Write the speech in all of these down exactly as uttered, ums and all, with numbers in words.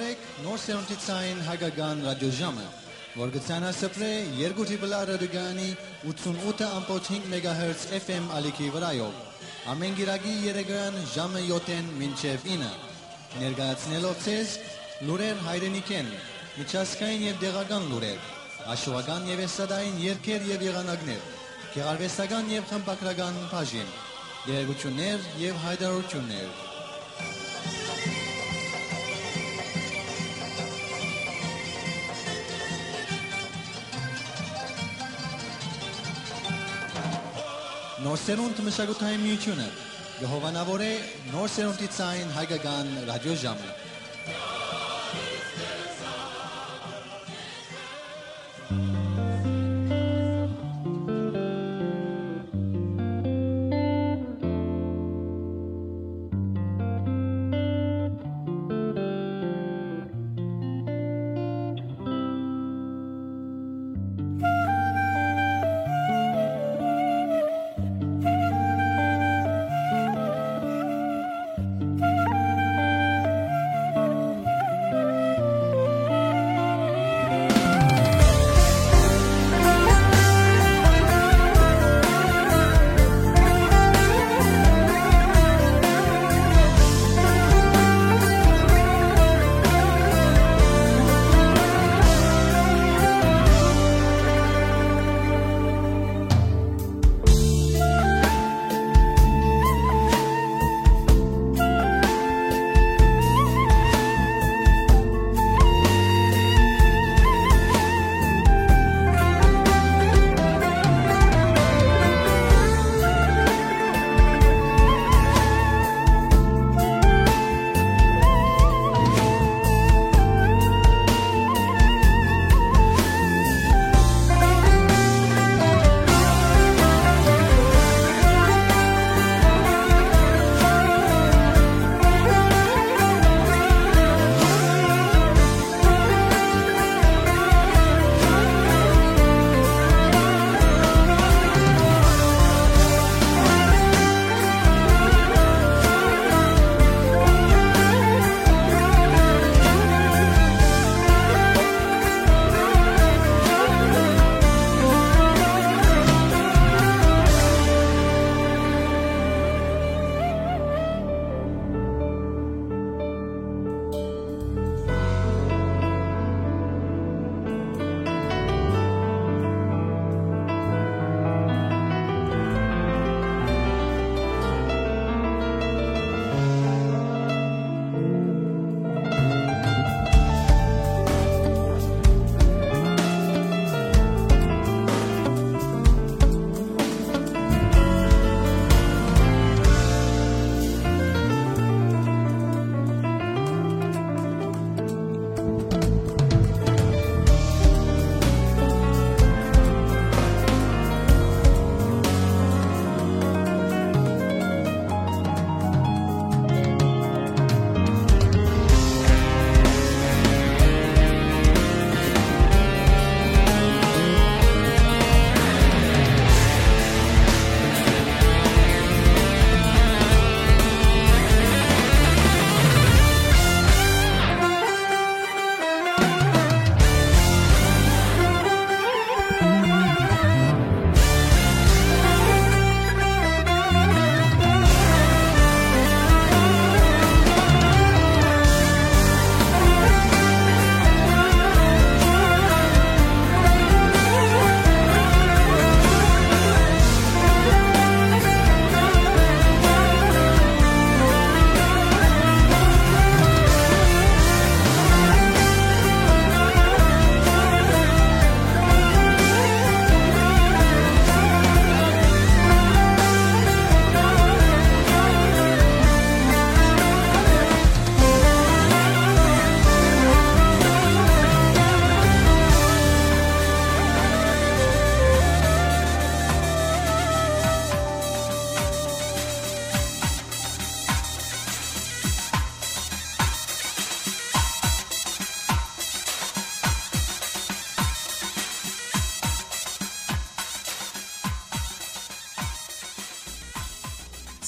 Նոր սերունդի ցային հայկական ռադիոժամը, որ կը ցանասփռէ երկու դիպլա ռադիոկայանի ութսունութ ըմբոց հինգ մեգահերց F M ալիքի վրայով, ամէն կիրակի երեկոյեան ժամը յոթ մինչեւ ինը, ներկայացնելով ձեզ լուրեր հայրենիքէն, միջազգային եւ տեղական լուրեր, հաշուական եւ էստրադային երգեր եւ եղանակներ, գեղարուեստական եւ խմբագրական բաժին, տեղեկութիւններ եւ յայտարարութիւններ։ Նոր սերունդ մշակութային միութիւնը կը հովանաւորէ նոր սերունդի ցային հայկական ռադիոժամը։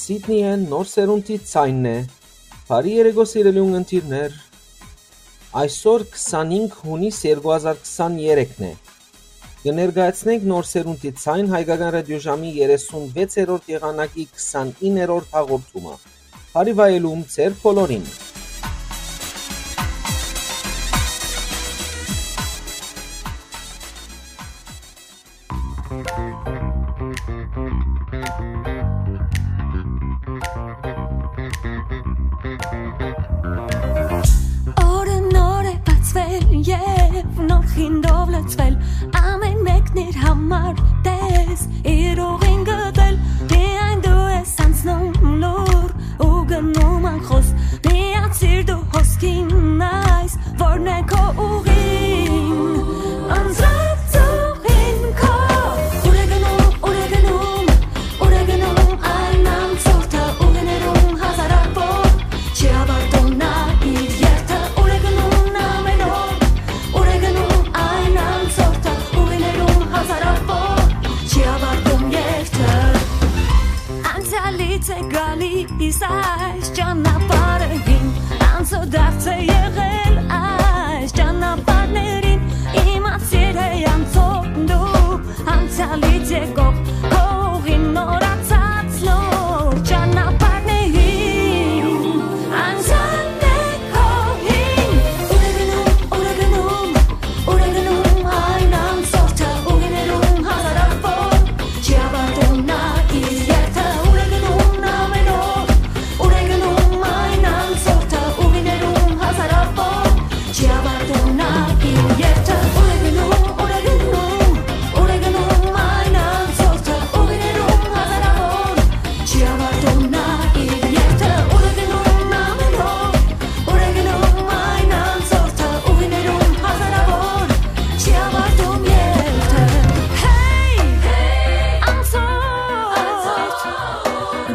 Սիդնիէն նոր սերունդի ցայնն է։ Բարի երեկո, սիրելի ունգընտիրներ։ Այսօր քսանինգ յունիս երկու հազար քսաներեքն է։ Կը ներկայացնենք Նոր սերունդի ձայն հայկական ռադիոժամի երեսունվեցերորդ եղանակի քսանիններորդ հաղորդումը։ Բարի վայելում ձեր բոլորին։ Օրը նոր է բացվել եւ նոր խինդով լցվել, ամեն մեկն իր համար տես, իր ուղին գտել, միայն դու ես անցնում լուր ու գնում անխոս, միացիր դու հոսքին այս, որն է քո ուղին, անցած ուղին քո, ուր է գնում, ուր է գնում, ուր է գնում այն անցորդը, ուղիներում հազարավոր, չի ավարտում նա իր երթը, ուր է գնում ամեն օր, ուր է գնում այն անցորդը, ուղիներում հազարավոր, չի ավարտում երթը։ Անցյալից է գալիս այս ճանապարհին, անցորդարձ է եղել այս ճանապարհներին, իմացիր է անցորդ դու, անցյալից եկող քո ուղին նորացած նոր ճանապարհներին, անցյալն է քո հին, ուր է գնում, ուր է գնում, ուր է գնում այն անցորդը, ուղիներում հազարավոր, չի ավարտում նա իր երթը, ուր է գնում ամեն օր, ուր է գնում այն անցորդը, ուղիներում հազարավոր, չի ավարտում նա իր երթը, ուր է գնում, ուր է գնում, ուր է գնում այն անցորդը, ուղիներում հազարավոր, չի ավարտում նա իր երթը, ուր է գնում ամեն օր, ուր է գնում այն անցորդը, ուղիներում հազարավոր, չի ավարտում երթը։ Հեյ, անցորդ,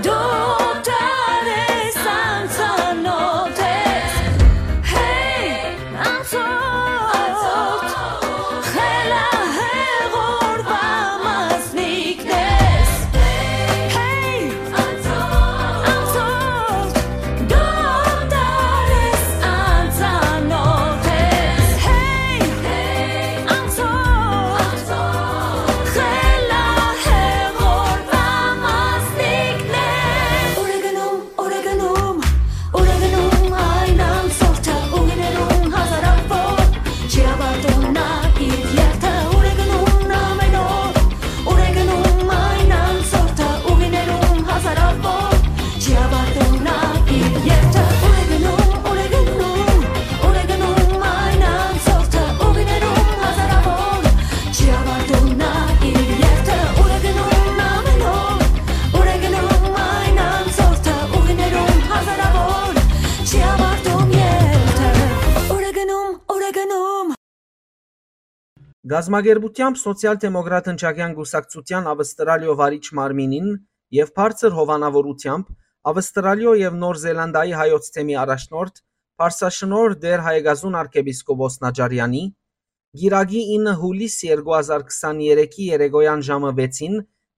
դու դեռ ես անծանոթ ես։ Հեյ, անցորդ, խելահեղ օրուան մասնիկն ես։ Հեյ, անցորդ, դու դեռ ես անծանոթ ես։ Հեյ, անցորդ, խելահեղ օրուան մասնիկն ես։ Ուր է գնում, ուր է գնում, ուր է գնում այն անցորդը, ուղիներում հազարավոր, չի ավարտում նա իր երթը, ուր է գնում ամեն օր, ուր է գնում այն անցորդը, ուղիներում հազարավոր, չի ավարտում նա իր երթը, ուր է գնում, ուր է գնում, ուր է գնում այն անցորդը, ուղիներում հազարավոր, չի ավարտում նա իր երթը, ուր է գնում ամեն օր, ուր է գնում այն անցորդը, ուղիներում հազարավոր, չի ավարտում երթը, ուր է գնում, ուր է գնում։ Գազམ་ագերբութեամբ Սոցիալ-դեմոկրատ ընչակեան կուսակցութեան Ավստրալիոյ վարիչ մարմինին եւ բարձր հովանաւորութեամբ Ավստրալիոյ եւ Նոր Զելանդիայի հայոց թեմի առաջնորդ, Պարսաշնորհ Տէր Հայագազուն արքեպիսկոպոս Նաճարեանի, կիրակի ինը յուլիս երկու հազար քսաներեքի երեկոյեան ժամը վեցին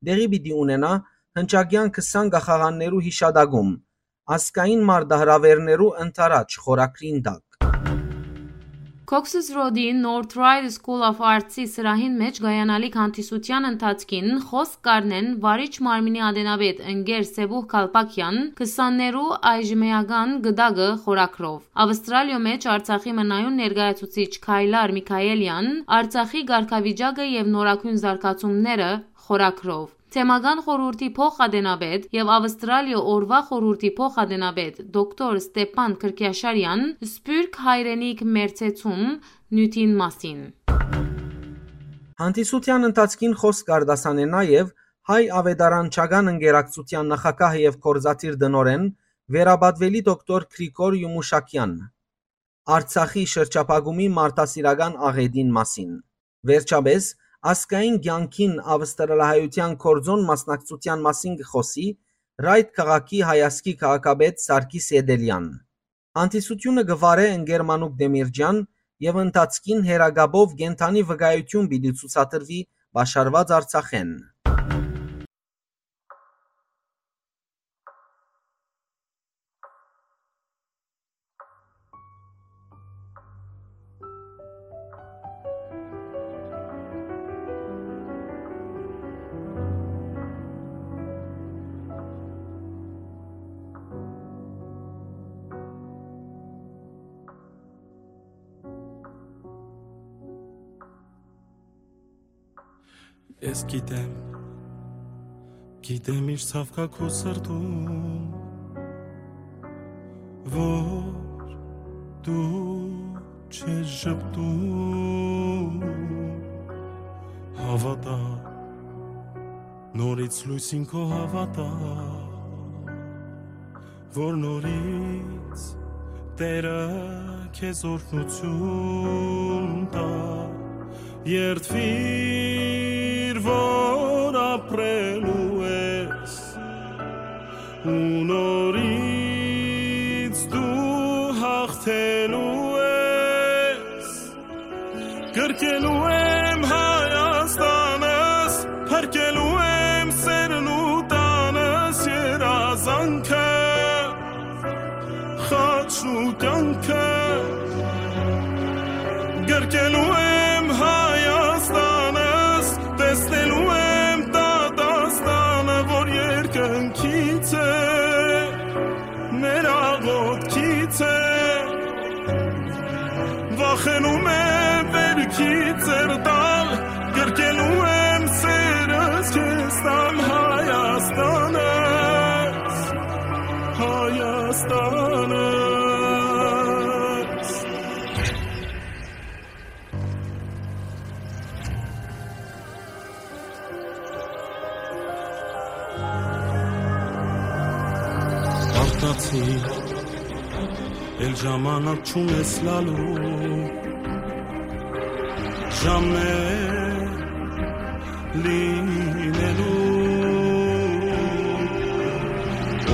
տեղի պիտի ունենայ հնչակեան քսան կախաղաններու յիշատակում, ազգային մարտահրաւէրներու ընդառաջ խորագրին տակ։ Cox's Road-ի North Ryde School of Arts-ի սրահին մէջ կայանալիք հանդիսութեան ընթացքին խօսք կ'առնեն վարիչ մարմինի ատենապետ ընկեր Սեւուհ Քալպակեան քսաններու այժմեական գտակը խորագրով։ Ավստրալիոյ մէջ Արցախի մնայուն ներկայացուցիչ Քայլար Միքայելեան Արցախի կարգավիճակը եւ նորագոյն զարգացումները խորագրով։ Թեմական խորհուրդի փոխ-ատենապետ եւ Ավստրալիոյ օրուան խորհուրդի փոխ-ատենապետ դոկտոր Ստեփան Քրքիաշարեան Սփիւռք հայրենիք մերձեցում նիւթին մասին։ Հանդիսութեան ընթացքին խօսք կ'արտասանէ նաեւ Հայ աւետարանչական ընկերակցութեան նախագահ եւ գործադիր տնօրէն, վերապատուելի դոկտոր Գրիգոր Յումուշակեան, Արցախի շրջափակումի մարդասիրական աղէտին մասին։ Վերջապէս, ազգային կեանքին ավստրալահայութեան գործօն մասնակցութեան մասին կը խօսի Ռայթ քաղաքի հայազգի քաղաքապետ Սարգիս Էտելեան։ Հանդիսութիւնը կը վարէ ընկեր Մանուկ Դեմիրճեան եւ ընթացքին հեռակապով կենդանի վկայութիւն պիտի ցուցադրուի Պաշարուած Արցախէն։ Ես գիտեմ, գիտեմ ինչ ցաւ կայ քու սրտում, որ դու չես ժպտում։ Հաւատա, նորից լոյսին քո հաւատա, որ նորից Տէրը քեզ օրհնություն տայ, երդուիր, որ ապրելու ես, ու նորից դու հաղթելու ես։ Կրկելու եմ Հայաստանս, փրկելու եմ սերն ու տանս, երազանքը, խաչն ու կյանքը։ Կրկելու եմ Հայաստանս, տեսնելու եմ դատաստանը, որ երկնքից է, մեր աղոթքից է։ Վախենում եմ վերքից ձեռ տալ, կրկելու եմ սերս քեզ տամ, Հայաստանս, Հայաստանս։ Արտացի, էլ ժամանակ չունես լալու, ժամն է լինելու։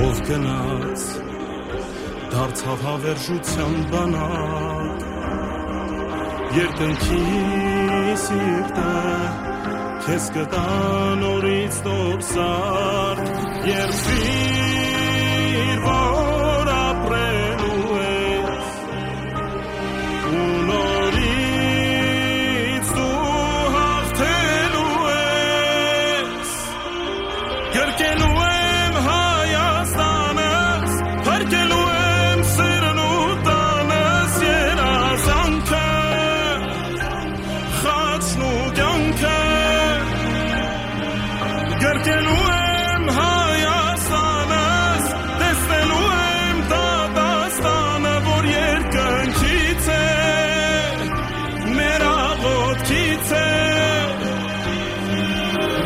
Ով գնաց, դարձաւ հավերժութեան բանակ, երկնքի սիրտը քեզ կտա նորից նոր սարք, երդուիր, որ ապրելու ես, ու նորից դու հաղթելու ես։ Կրկելու եմ Հայաստանս, փրկելու եմ սերն ու տանս, երազանքը, խաչն ու կյանքը։ Կրկելու եմ Հայաստանս, տեսնելու եմ դատաստանը, որ երկնքից է, մեր աղոթքից է։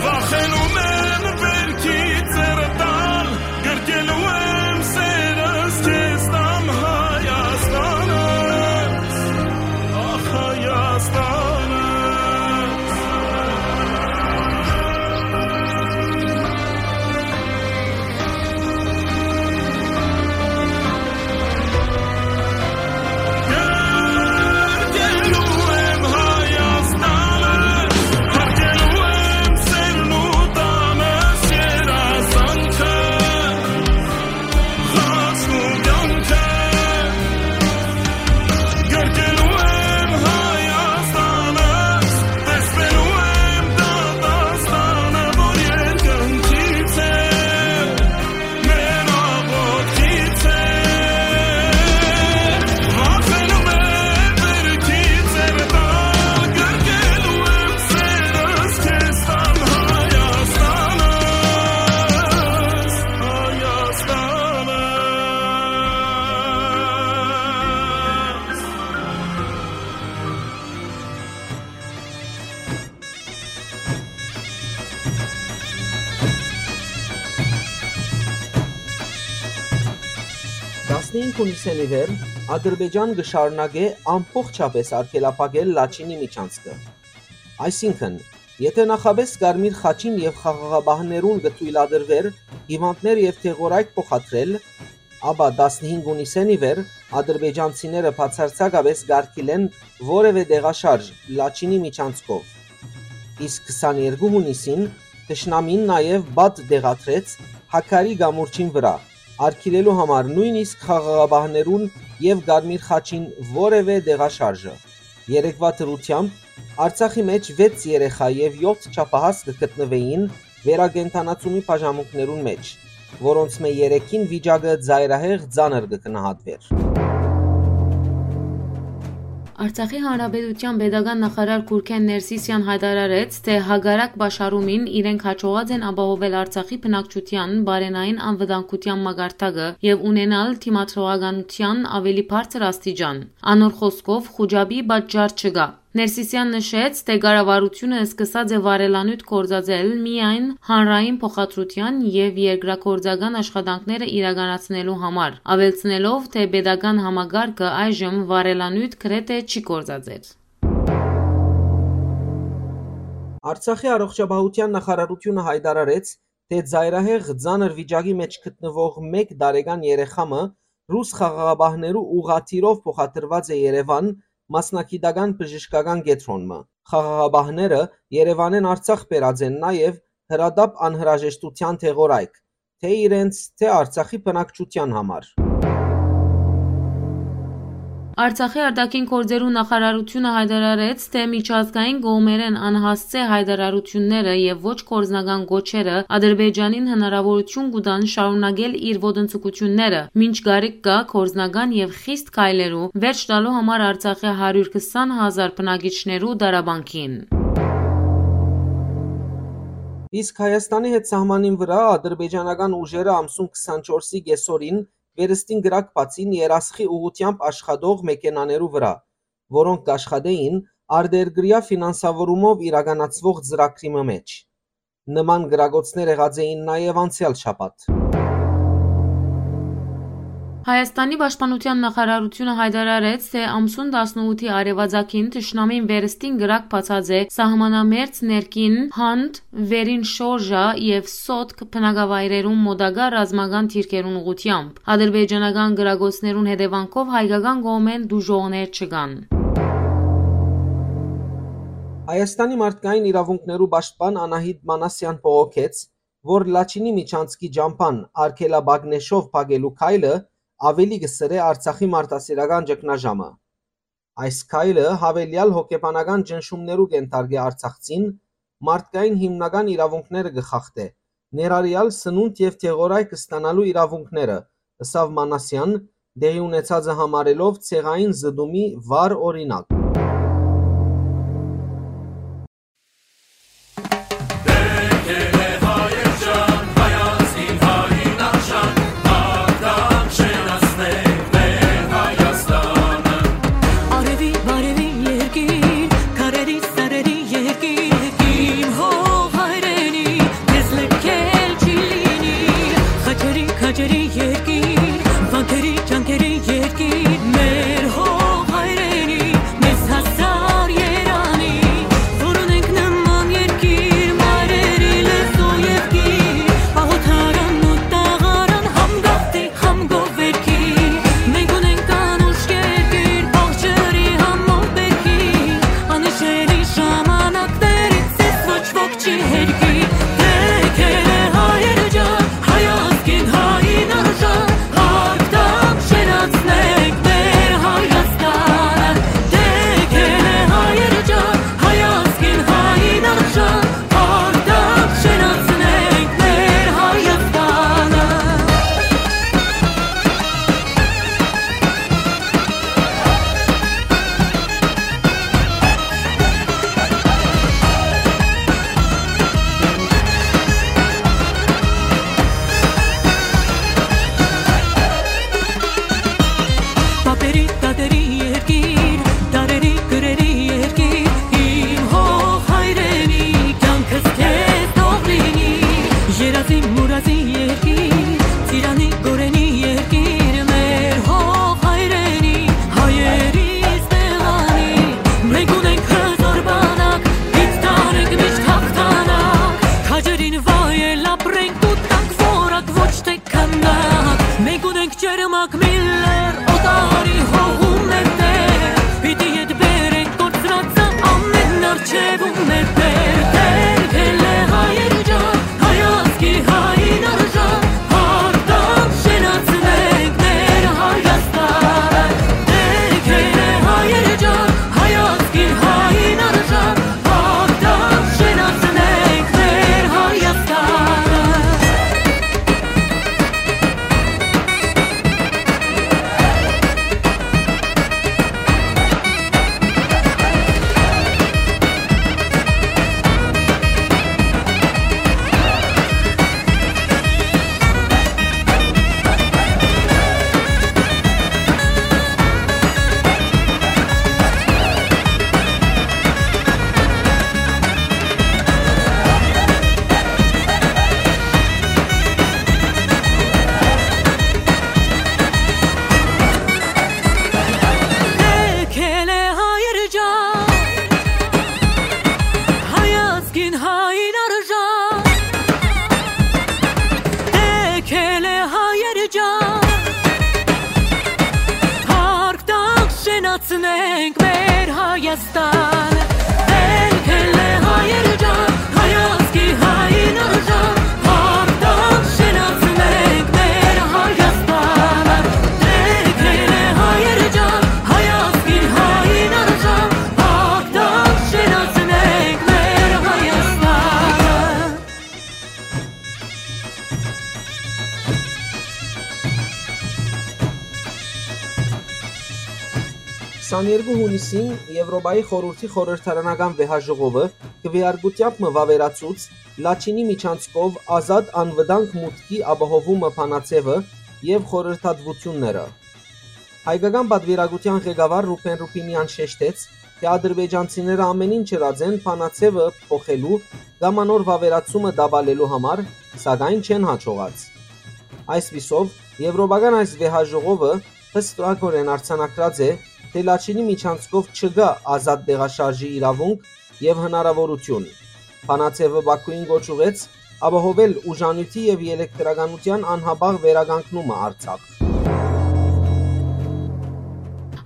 Վախենում եմ վերքից ձեռ տալ, կրկելու եմ սերս քեզ տամ, Հայաստանս, ախ, Հայաստանս։ Տասնհինգ հունիսէն ի վեր Ադրբեջան կը շարունակէ ամբողջապէս արգելափակել Լաչինի միջանցքը։ Այսինքն, եթէ նախապէս Կարմիր խաչին եւ խաղաղապահներուն կը թոյլատրուէր հիւանդներ եւ դեղորայք փոխադրել, ապա տասնհինգ հունիսէն ի վեր ադրբեջանցիները բացարձակապէս կ'արգիլեն որեւէ տեղաշարժ Լաչինի միջանցքով։ Իսկ քսաներկու հունիսին թշնամին նաեւ պատ տեղադրեց Հաքարի կամուրջին վրայ, արգիլելու համար նոյնիսկ խաղաղապահներուն եւ Կարմիր խաչին որեւէ տեղաշարժը։ Երեկվա դրութեամբ Արցախի մէջ վեց երեխայ եւ յոթ չափահաս կը գտնուէին վերակենդանացումի բաժանմունքներուն մէջ, որոնցմէ երեքին վիճակը ծայրահեղ ծանր կը գնահատուէր։ Արցախի Հանրապետութեան պետական նախարար Գուրգէն Ներսիսեան յայտարարեց, թէ հակառակ պաշարումին իրենք յաջողած են ապահովել Արցախի բնակչութեան բարենային անվտանգութեան մակարդակը եւ ունենալ դիմադրողականութեան աւելի բարձր աստիճան։ Անոր խօսքով, խուճապի պատճառ չկայ։ Ներսիսեան նշեց, թէ կառավարութիւնը սկսած է վարելանիւթ գործածել միայն հանրային փոխադրութեան եւ երկրագործական աշխատանքները իրականացնելու համար, աւելցնելով, թէ պետական համակարգը այժմ վարելանիւթ գրեթէ չի գործածեր։ Արցախի առողջապահութեան նախարարութիւնը յայտարարեց, թէ ծայրահեղ ծանր վիճակի մէջ գտնուող մէկ տարեկան երեխայ մը ռուս խաղաղապահներու ուղղաթիռով փոխադրուած է Երեւան մասնագիտական բժշկական կեդրոն մը։ Խաղաղապահները Երեւանէն Արցախ բերած են նաեւ հրատապ անհրաժեշտութեան դեղորայք, թէ իրենց, թէ Արցախի բնակչութեան համար։ Արցախի արտաքին գործերու նախարարութիւնը յայտարարեց, թէ միջազգային կողմերէն անհասցէ յայտարարութիւնները եւ ոչ գործնական կոչերը Ադրբեջանին հնարաւորութիւն կու տան շարունակել իր ոտնձգութիւնները, մինչ կարիք կայ գործնական եւ խիստ քայլերու վերջ տալու համար Արցախի հարիւր քսան հազար բնակիչներու տառապանքին։ Իսկ Հայաստանի հետ սահմանին վրայ ադրբեջանական ուժերը ամսուն քսանչորսի կեսօրին վերստին կրակ բացին երասխի ուղղութեամբ աշխատող մեքենաներու վրայ, որոնք կաշխատէին արտերկրեայ ֆինանսավորումով իրականացուող ծրագրի մը մէջ։ Նման կրակոցներ եղած էին նաեւ անցեալ շաբաթ։ Հայաստանի պաշտպանութեան նախարարութիւնը յայտարարեց, թէ ամսուն տասնութի արեւածագին թշնամին վերստին կրակ բացած է սահմանամերձ ներքին Հանդ, Վերին Շորժա եւ Սոտք բնակավայրերուն մօտակայ ռազմական դիրքերուն ուղղութեամբ։ Ադրբեջանական կրակոցներուն հետեւանքով հայկական կողմէն տուժողներ չկան։ Հայաստանի մարդկային իրաւունքներու պաշտպան Անահիտ Մանասեան բողոքեց, որ Լաչինի միջանցքի ճամբան արգելաբագնեշով փակելու քայլը աւելի կը սրէ Արցախի մարդասիրական ճգնաժամը։ Այս քայլը յաւելեալ հոգեբանական ճնշումներու կ'ենթարկէ արցախցին, մարդկային հիմնական իրաւունքները կը խախտէ, ներառեալ սնունդ եւ դեղորայք ստանալու իրաւունքները, ըսաւ Մանասեան, տեղի ունեցածը համարելով ցեղային զտումի վառ օրինակ։ Արեւի, բարեւի երկիր, քարերի, սարերի երկիր, իմ հող հայրենի, քեզ լքել չի լինի։ Խաչերի, քաջերի երկիր, վանքերի, ճանկերի երկիր, մեր հող հայրենի, մեզ հասար երանի, որ ունենք նման երկիր, մայրերի լեզու եւ գիր, պահոթարան ու տաղարան, համ գաղթի, համ գովերքի, մենք ունենք անուշ երկիր, բաղ ջրի, համ մով բերքի, անհիշելի ժամանակներից ես ոչ ոք չի հերքի, դե քեզ հայեր ջան, հայ ազգին, հային արժան, հագտամ շենացնենք մեր Հայաստանը, դե քեզ հայեր ջան, հայ ազգին, հային արժան, հագտամ շենացնենք մեր Հայաստանը։ Պապերի, տատերի երկիր, դարերի, կրերի երկիր, իմ հող հայրենի, կյանքս քեզ թող լինի, երազի, մուրազի երկիր, ծիրանի, գորենի երկիր, մեր հող հայրենի, հայերիս տեղանի, մենք ունենք հզոր բանակ, պիտի տանենք միշտ հաղթանակ, քաջերին վայել ապրենք ու տանք որակ, ոչ թե քանակ, մենք ունենք ջերմակ Միլլեր, օտարի հողու մեր տեղ, պիտի ետ բերենք կորցրածը ամեն արջևում մեր տեղ, դեր քեզ հայեր ջան, հայ ազգի, հային արժան, հաղթամ շենացնենք մեր Հայաստանը, դեր քեզ հայեր ջան, հայ ազգի, հային արժան, հաղթամ շենացնենք մեր Հայաստանը։ Հայաստան, ելք ելլե հայեր ջան, հայ ազգի հային արժան, հաղթանք շնորհեցնենք մեր Հայաստանը։ Ելք ելլե հայեր ջան, հայ ազգի հային արժան, հաղթանք շնորհեցնենք մեր Հայաստանը։ Քսաներկու յունիսին Եւրոպայի խորհուրդի խորհրդարանական վեհաժողովը քուէարկութեամբ մը վաւերացուց Լաչինի միջանցքով ազատ անվտանգ մուտքի ապահովումը բանաձեւը եւ խորհրդատուությունները։ Հայկական պատուիրակութեան ղեկավար Ռուբեն Ռուբինեան շեշտեց, թէ ադրբեջանցիները ամեն ինչ ըրած են բանաձեւը փոխելու կամ անոր վաւերացումը տապալելու համար, սակայն չեն յաջողած։ Այսպիսով, եվրոպական այս վեհաժողովը հստակօրէն արձանագրած է, թէ Լաչինի միջանցքով չկայ ազատ տեղաշարժի իրաւունք եւ հնարաւորութիւն։ Բանաձեւը Բաքուին կոչ ուղղեց ապահովել ուժանիւթի եւ ելեկտրականութեան անհապաղ վերականգնումը Արցախ։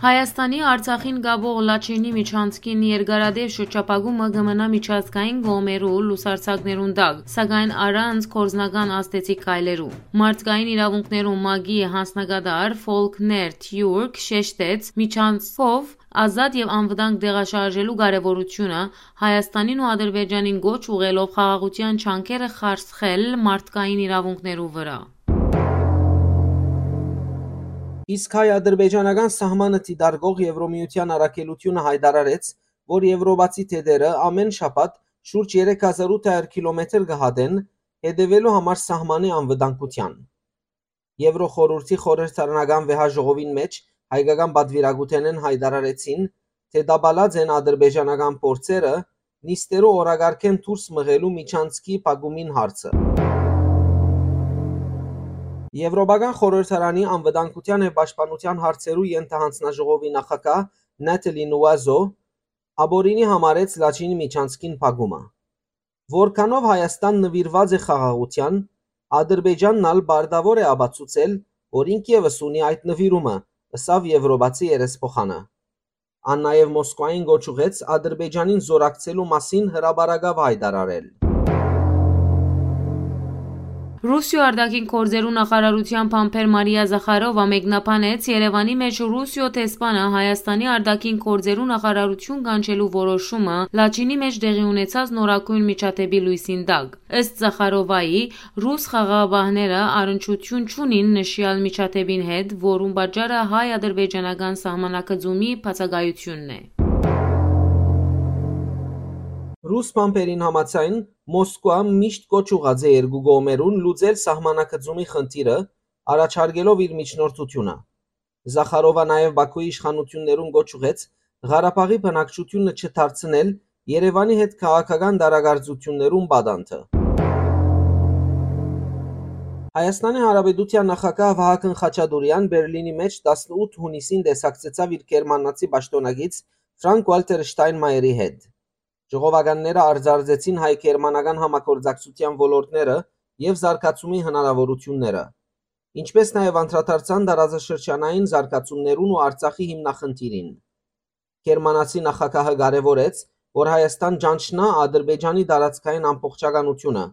Հայաստանի Արցախին կապող Լաչինի միջանցքին երկարատեւ շրջափակումը կը մնայ միջազգային կողմերու լուսարձակներուն տակ, սակայն առանց գործնական ազդեցիկ քայլերու։ Մարդկային իրաւունքներու մագի յանձնակատար Ֆոլքներ Թիուրք շեշտեց, միջանցքով ազատ եւ անվտանգ տեղաշարժելու կարեւորութիւնը, Հայաստանին ու Ադրբեջանին կոչ ուղղելով խաղաղութեան ջանքերը խարսխել մարդկային իրաւունքներու վրայ։ Իսկ հայ-ադրբեջանական սահմանը դիտարկող Եվրոմիության առաքելութիւնը յայտարարեց, որ եվրոպացի դետերը ամէն շաբաթ շուրջ երեք հազար ութ հարիւր քիլոմետր կը հատեն, հետեւելու համար սահմանի անվտանգութեան։ Եվրոխորհուրդի խորհրդարանական վեհաժողովին մէջ հայկական պատուիրակութենէն յայտարարեցին, թէ տապալած են ադրբեջանական փորձերը նիստերու օրակարգէն դուրս մղելու միջանցքի փակումին հարցը։ Եվրոպական խորհրդարանի անվտանգութեան եւ պաշտպանութեան հարցերու ենթահանձնաժողովի նախագահ Նատալի Նուազո ապօրինի համարեց Լաչինի միջանցքին փակումը։ Որքանով Հայաստան նուիրուած է խաղաղութեան, Ադրբեջանն ալ պարտաւոր է ապացուցել, որ ինք եւս ունի այդ նուիրումը, ըսաւ եվրոպացի երեսփոխանը։ Ան նաեւ Մոսկվային կոչ ուղղեց Ադրբեջանին զօրակցելու մասին հրապարակաւ յայտարարել։ Ռուսիոյ արտաքին գործերու նախարարութեան բանբեր Մարիա Զախարովա մեկնաբանեց Երեւանի մէջ Ռուսիոյ դեսպանը Հայաստանի արտաքին գործերու նախարարութիւն կանչելու որոշումը Լաչինի մէջ տեղի ունեցած նորագոյն միջադէպի լոյսին տակ։ Ըստ Զախարովայի, ռուս խաղաղապահները առնչութիւն չունին նշեալ միջադէպին հետ, որուն պատճառը հայ-ադրբեջանական սահմանագծումի բացակայութիւնն է։ Ռուս բանբերին համաձայն, Մոսկվա միշտ կոչ ուղղած է երկու կողմերուն լուծել սահմանագծումի խնդիրը, առաջարկելով իր միջնորդութիւնը։ Զախարովա նաեւ Բաքուի իշխանութիւններուն կոչ ուղղեց Ղարաբաղի բնակչութիւնը չդարձնել Երեւանի հետ քաղաքական տարակարծութիւններուն պատանդը։ Հայաստանի Հանրապետութեան նախագահ Վահագն Խաչատուրեան Բերլինի մէջ տասնութ յունիսին տեսակցեցաւ իր գերմանացի պաշտօնակից Ֆրանկ Ուալտեր Շտայնմայերի հետ։ Ժողովականները արձանագրեցին հայ-գերմանական համագործակցութեան ոլորտները եւ զարգացումի հնարաւորութիւնները, ինչպէս նաեւ անդրադարձան տարածաշրջանային զարգացումներուն ու Արցախի հիմնախնդիրին։ Գերմանացի նախագահը կարեւորեց, որ Հայաստան ճանչնայ Ադրբեջանի տարածքային ամբողջականութիւնը,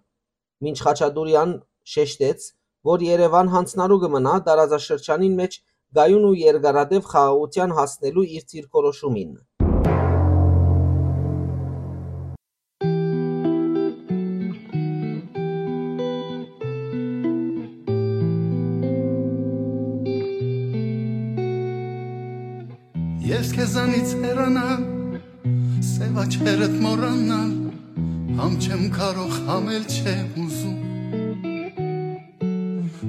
մինչ Խաչատուրեան շեշտեց, որ Երեւան յանձնառու կը մնայ տարածաշրջանին մէջ կայուն ու երկարատեւ խաղաղութեան հասնելու իր դիրքորոշումին։ Ես քեզանից հեռանալ, սև աչքերդ մոռանալ, համ չեմ կարող, համ էլ չեմ ուզում։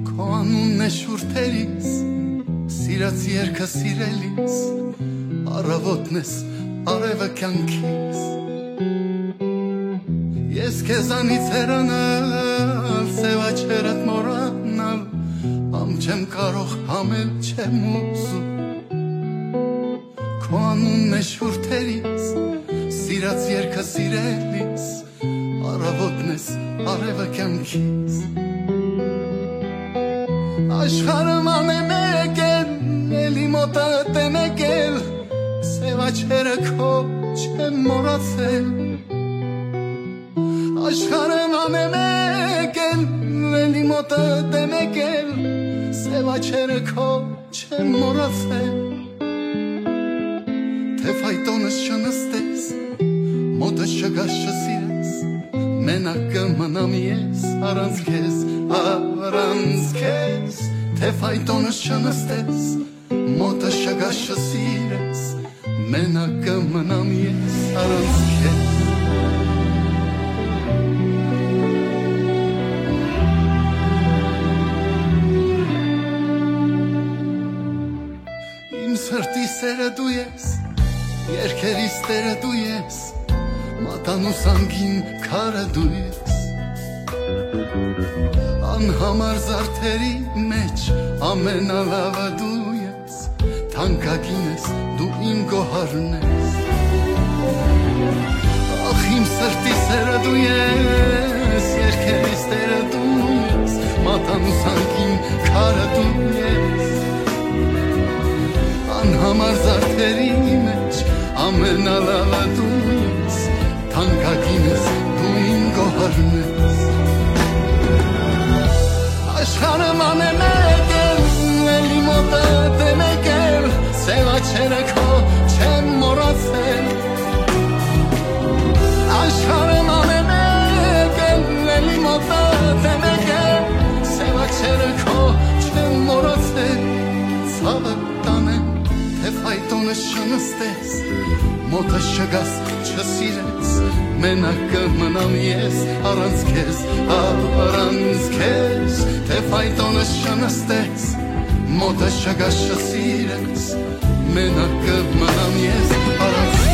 Քո անունն է շուրթերիս, սիրած երկը սիրելիս, առավոտն ես, արևը կյանքիս։ Ես քեզանից հեռանալ, սև աչքերդ մոռանալ, համ չեմ կարող, համ էլ չեմ ուզում։ Քո անունն է շուրթերիս, սիրած երկը սիրելիս, առավոտն ես, արևը կյանքիս։ Աշխարհը ման է մեկ էլ, էլի մոտդ է մեկ էլ, սև Չերը քո չեմ մոռացել, աշխարհը անե մեկ էլ, էլի մոտդ է մեկ էլ, սեւ աչերը քո չեմ մոռացել, թէ ֆայտոնս չնստես, մոտս չգաս չսիրես, մենակ կը մնամ ես առանց քեզ, առանց քեզ, թէ ֆայտոնս չնստես, մոտս չգաս չսիրես, մենակ կը մնամ ես առանց քեզ։ Իմ սրտի սերը դու ես, երկերիս տերը դու ես, մատանուս անգին քարը դու ես, անհամար զարդերի մեջ ամենալավը դու ես, թանկագին ես դու իմ գոհարն ես։ Ախ, իմ սրտի սերը դու ես, երկերիս տերը դու ես, մատանուս անգին քարը դու ես, անհամար զարդերի մեջ ամենալավը դու ես, թանկագին ես դու իմ գոհարն ես։ Աշխարհը անե մեկ էլ, էլի մոտդ է մեկ էլ, սեւ աչերը քո չեմ մոռացել, աշխարհը անե մեկ էլ, էլի մոտդ է մեկ էլ, սեւ աչերը քո չեմ մոռացել, ցավը տանեմ, թէ ֆայտոնս չնստես, մոտս չգաս չսիրես, մենակ կը մնամ ես առանց քեզ, առանց քեզ, թէ ֆայտոնս չնստես, մոտս չգաս չսիրես, մենակ կը մնամ ես առանց քեզ։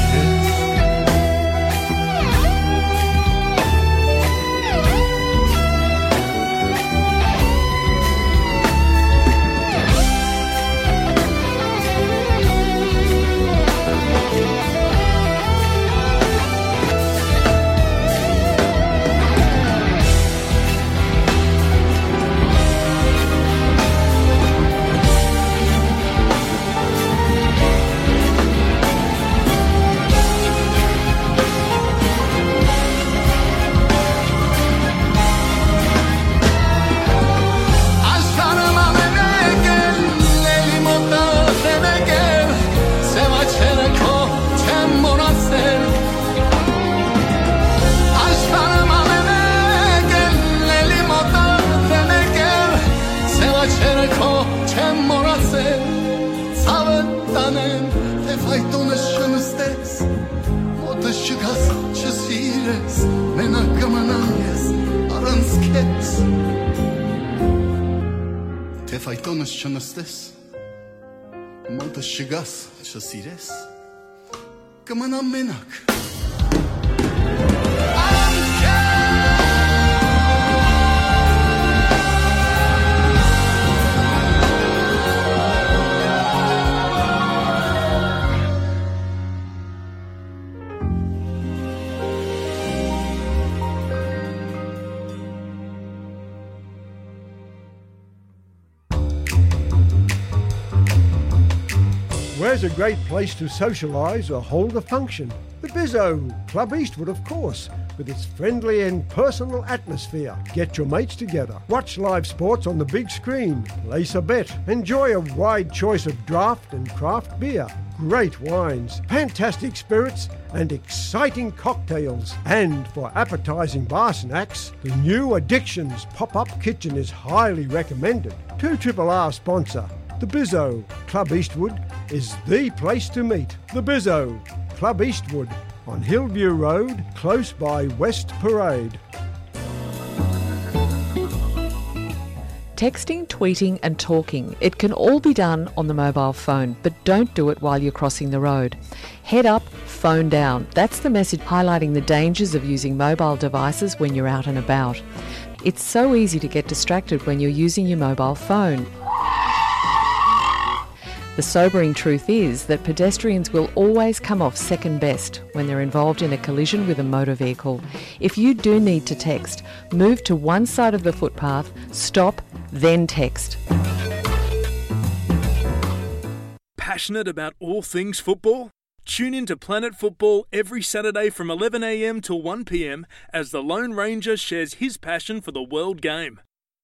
Աշխարհը անե մեկ էլ, էլի մոտդ է մեկ էլ, սեւ աչերը քո չեմ մոռացել, աշխարհը անե մեկ էլ, էլի մոտդ է մեկ էլ, սեւ աչերը քո չեմ մոռացել, ցավը տանեմ, թէ ֆայտոնս չնստես, մոտս չգաս չսիրես, մենակ կը մնամ ես առանց քեզ, թէ ֆայտոնս չնստես, մոտս չգաս չսիրես, կը մնամ մենակ։ Where's a great place to socialise or hold a function? The Bizzo, Club Eastwood, of course, with its friendly and personal atmosphere. Get your mates together, watch live sports on the big screen, place a bet, enjoy a wide choice of draft and craft beer, great wines, fantastic spirits, and exciting cocktails. And for appetising bar snacks, the new Addictions pop-up kitchen is highly recommended. Two Triple R sponsor, the Bizzo. Club Eastwood is the place to meet. The Bizzo, Club Eastwood, on Hillview Road, close by West Parade. Texting, tweeting, and talking, it can all be done on the mobile phone, but don't do it while you're crossing the road. Head up, phone down. That's the message highlighting the dangers of using mobile devices when you're out and about. It's so easy to get distracted when you're using your mobile phone. The sobering truth is that pedestrians will always come off second best when they're involved in a collision with a motor vehicle. If you do need to text, move to one side of the footpath, stop, then text. Passionate about all things football? Tune in to Planet Football every Saturday from eleven a.m. to one p.m. as the Lone Ranger shares his passion for the world game.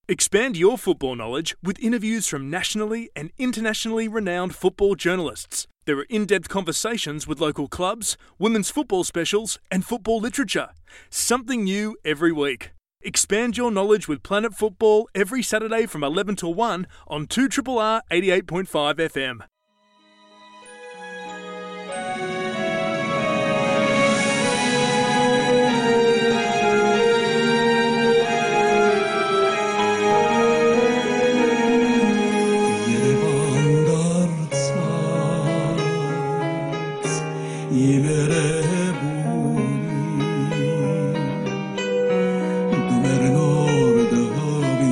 Expand your football knowledge with interviews from nationally and internationally renowned football journalists. There are in-depth conversations with local clubs, women's football specials, and football literature. Something new every week. Expand your knowledge with Planet Football every Saturday from eleven to one on two R R R eighty-eight point five F M. Երևան դարձած իմ երևույթ, դու մեր նոր դահլիճ,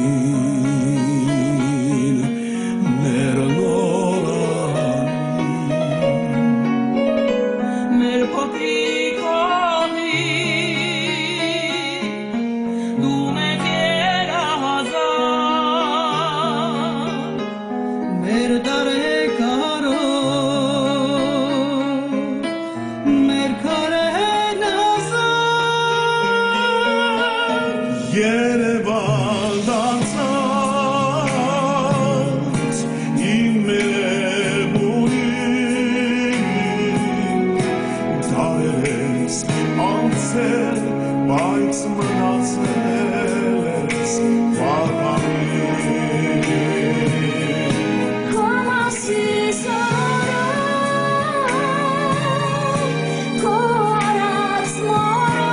մեր նոր անիլ, մեր փոքրիկ հողի, դու մեծ երազանք, մեր տարեգիրը, մեր քարերն ազատ։ Երևան դարձած իմ երևույթ, դարեր ես անցել, բայց մնացել ես պատանին։ Քո մասին սորը, քո արած մորը,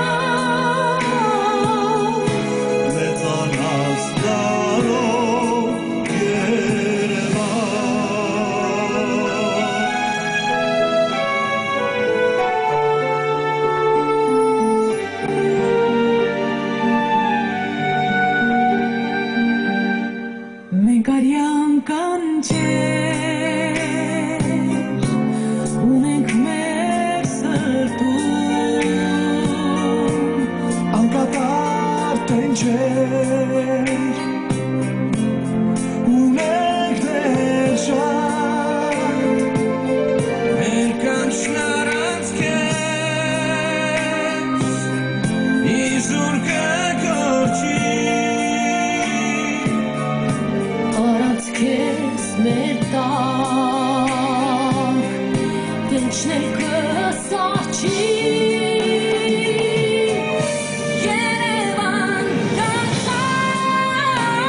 մեծանաս դարով Երևան։ Մենք արեան կանչեր ունենք մեր սրտում, անկատար տենչեր ունենք դեռ շատ, մեր կանչն առանց քեզ իզուր կը կորչի։ Առանց քեզ մեր տան տենչն կը սառչի։ Երևան դարձած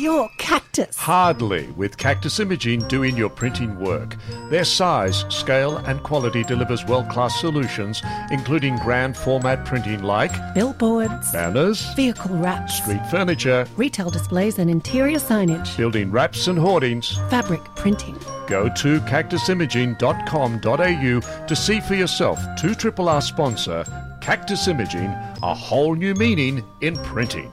Your Cactus. Hardly, with Cactus Imaging doing your printing work. Their size, scale, and quality delivers world-class solutions, including grand format printing like billboards, banners, vehicle wraps, street furniture, retail displays and interior signage, building wraps and hoardings, fabric printing. Go to cactus imaging dot com dot a u to see for yourself two triple R sponsor Cactus Imaging, a whole new meaning in printing.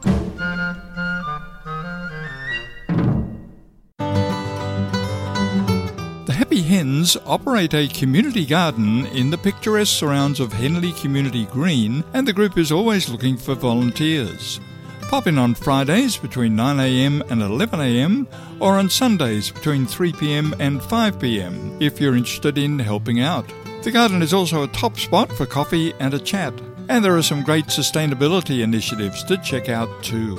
The Happy Hens operate a community garden in the picturesque surrounds of Henley Community Green, and the group is always looking for volunteers. Pop in on Fridays between nine a m and eleven a m, or on Sundays between three p m and five p m if you're interested in helping out. The garden is also a top spot for coffee and a chat, and there are some great sustainability initiatives to check out too.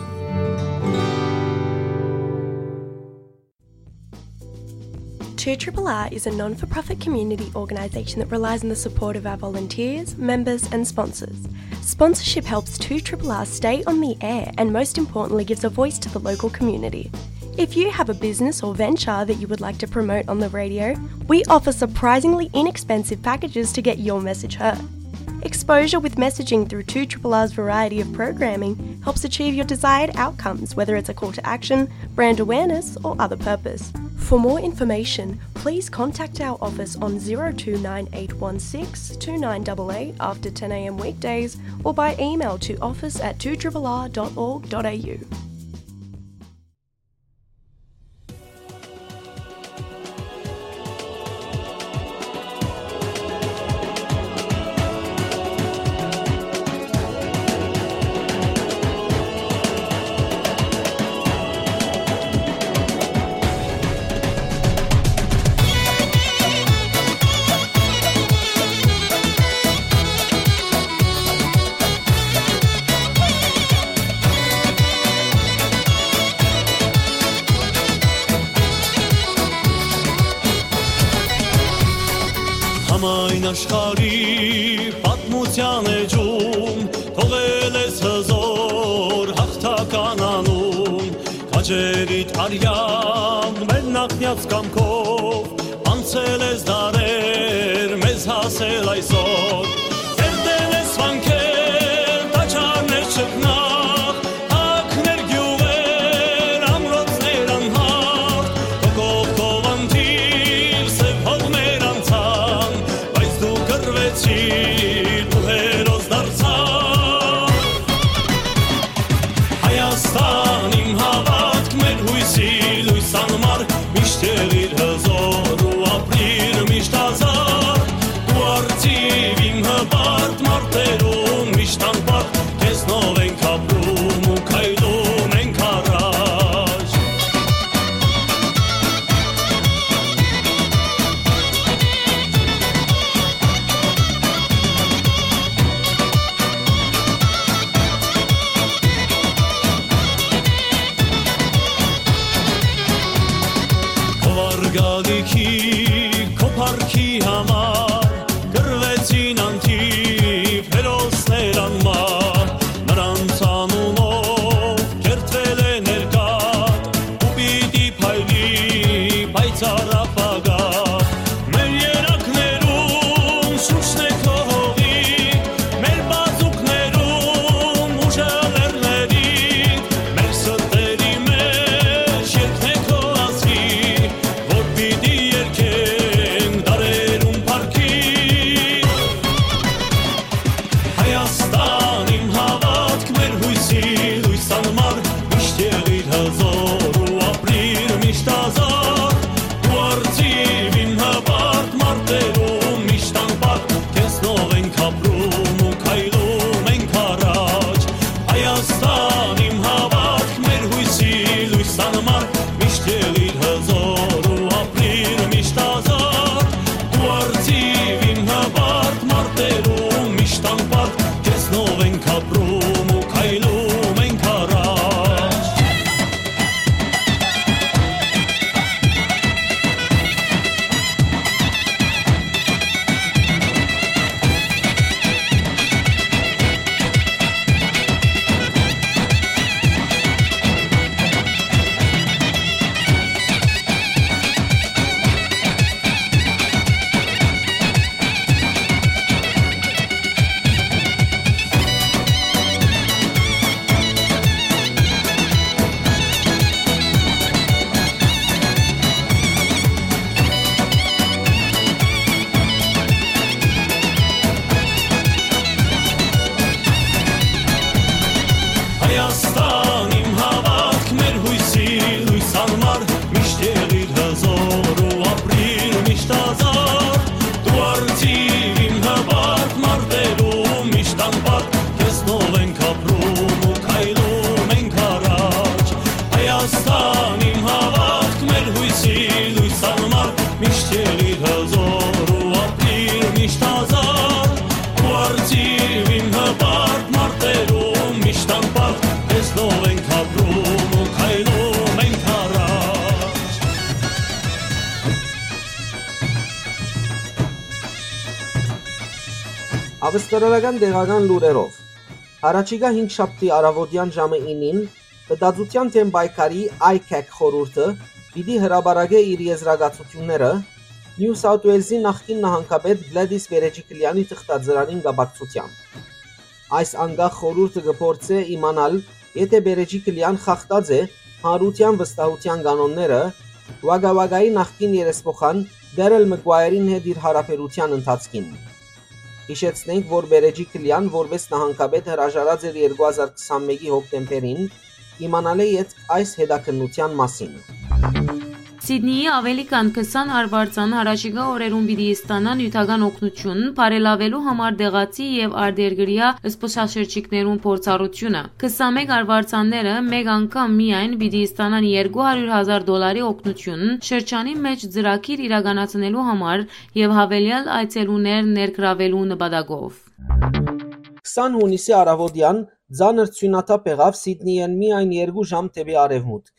Two Triple R is a non for profit community organisation that relies on the support of our volunteers, members, and sponsors. Sponsorship helps Two Triple R stay on the air and, most importantly, gives a voice to the local community. If you have a business or venture that you would like to promote on the radio, we offer surprisingly inexpensive packages to get your message heard. Exposure with messaging through Two Triple R's variety of programming helps achieve your desired outcomes, whether it's a call to action, brand awareness, or other purpose. For more information, please contact our office on zero two nine eight one six two nine eight eight after ten a m weekdays or by email to office at two triple r dot org dot a u. Համայն աշխարհի պատմութեան էջում թողել ես հզոր յաղթական անուն, քաջերիդ արեան մեր նախնյաց կամքով անցել ես դարեր, մեզ հասել այսօր։ Կերտել ես վանքեր, տաճարներ չքնաղ, հակներ գիւղեր, ամրոցներ անհաղթ, քո կողքով անթիւ սեւ հողներ անցան, բայց դու կռվեցիր, դու հերոս դարձար։ Հայաստան իմ հաւատք, մեր յոյսի լոյս անմար, միշտ եղիր հզոր ու ապրիր միշտ ազատ, դու արծիվ իմ հպարտ մարտերուն միշտ անպատ, քեզնով ենք ապրում ու քայլում ենք առաջ։ Քո արգալիքի, քո փառքի համար կռվեցին անթիվ հերոսներ անմահ, նրանց անունով կերտվել է ներկայ ու պիտի փայլի պայծառ ապագա։ Մեր երակներուն շունչն է քո հողի, մեր բազուկներուն ուժը լեռների, մեր սրտերի մեջ երգն է քո ազգի, որ պիտի երգէ Արծիվին հպարտ մարտերում միշտ անպարտ, տեսնով ենք ապրում ու քայլում ենք առաջ։ Ավստրալական տեղական լուրերով։ Յառաջիկայ հինգշաբթի առաւօտեան ժամը ինին Մտածութեան դէմ պայքարի ICAC խորհուրդը պիտի հրապարակէ իր եզրակացութիւնները Նիու Սաութ Ուելզի նախկին նահանգապետ Գլադիս Պերեջիկլեանի թղթածրարին կապակցութեամբ։ Այս անկախ խորհուրդը կը փորձէ իմանալ, եթէ Պերեջիկլեան խախտած է հանրութեան վստահութեան կանոնները, Ուակա Ուակայի նախկին երեսփոխան Դերել Մկուայերին հետ իր յարաբերութեան ընթացքին։ Յիշեցնենք, որ Պերեջիկլեան որպէս նահանգապետ հրաժարած էր երկու հազար քսանմէկի հոկտեմբերին, իմանալէ ետք այս հետաքննութեան մասին։ Սիդնիի աւելի քան քսան արուարձան յառաջիկայ օրերուն պիտի ստանան նիւթական օգնութիւն, բարելաւելու համար տեղացի եւ արտերկրեայ զբօսաշրջիկներուն փորձառութիւնը։ Քսանմէկ արուարձանները մէկ անգամ միայն պիտի ստանան երկու հարիւր հազար դոլարի օգնութիւն, շրջանի մէջ ծրագիր իրականացնելու համար եւ յաւելեալ այցելուներ ներգրաւելու նպատակով։ Քսան յունիսի առաւօտեան ծանր ձիւնաթափ եղաւ Սիդնիէն միայն երկու ժամ դէպի արեւմուտք։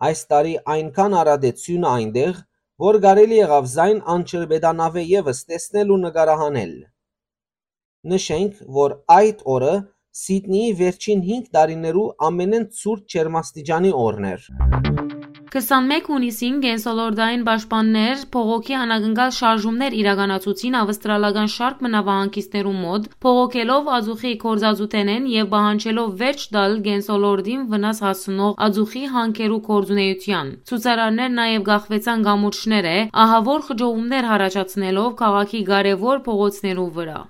Այս տարի այնքան արատ է ձիւնը այնտեղ, որ կարելի եղաւ զայն անջրպետանաւէ եւս տեսնել ու նկարահանել։ Նշենք, որ այդ օրը Սիդնիի վերջին հինգ տարիներու ամենէն ցուրտ ջերմաստիճանի օրն էր։ Քսանմէկ յունիսին կենսոլորտային պաշտպաններ բողոքի անակնկալ շարժումներ իրականացուցին ավստրալական շարք մը նաւահանգիստներու մօտ, բողոքելով ածուխի գործածութենէն եւ պահանջելով վերջ տալ կենսոլորտին վնաս հասցնող ածուխի հանքերու գործունեութեան։ Ցուցարարներ նաեւ կախուեցան կամուրջներէ, ահաւոր խճողումներ յառաջացնելով քաղաքի կարեւոր փողոցներու վրայ։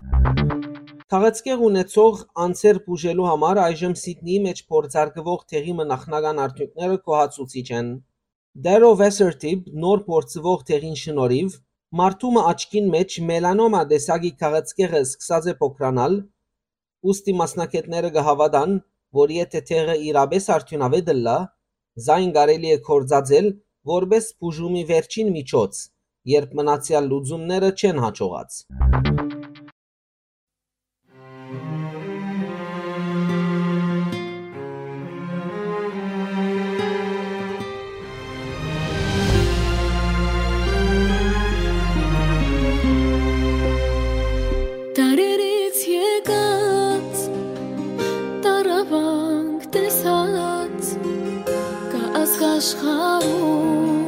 Քաղցկեղ ունեցող անձեր բուժելու համար այժմ Սիդնիի մէջ փորձարկուող դեղի մը նախնական արդիւնքները գոհացուցիչ են։ Դերո Վեսերտիպ նոր փորձուող դեղին շնորհիւ մարդու մը աչքին մէջ մելանոմա տեսակի քաղցկեղը սկսած է փոքրանալ, ուստի մասնագէտները կը հաւատան, որ եթէ դեղը իրապէս արդիւնաւէտ ըլլայ, զայն կարելի է գործածել որպէս բուժումի վերջին միջոց, երբ մնացեալ լուծումները չեն յաջողած։ Դարերից եկած, տառապանք տեսած, կայ ազգ աշխարհում,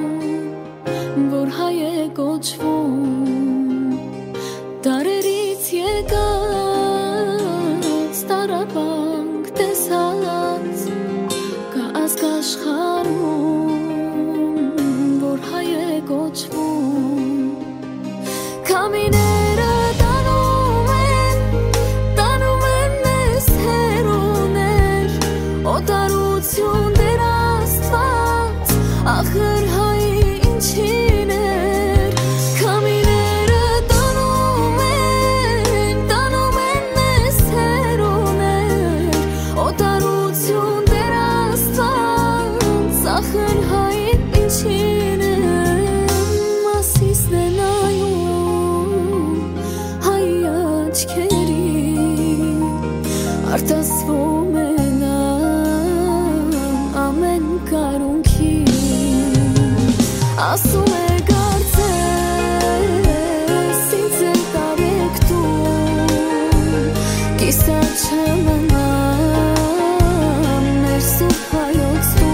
որ հայ է կոչվում։ Դարերից եկած, տառապանք տեսած, կայ ազգ աշխարհում, որ հայ է կոչվում։ Քամիները տանում են, տանում են մեզ հեռուներ, օտարություն Տեր Աստված, ախր հայ ինչին էր։ Քամիները տանում են, տանում են մեզ հեռուներ, օտարություն Տեր Աստված, ախր հայ ինչին է։ Մասիսն է նայում հայ աչքերին, արտասվում է նա ամէն կարունքին, ասում է. «Կարծես ինձ էլ տարեք դու, կիսատ չեմ մնամ մեր սուրբ հայոց տուն»։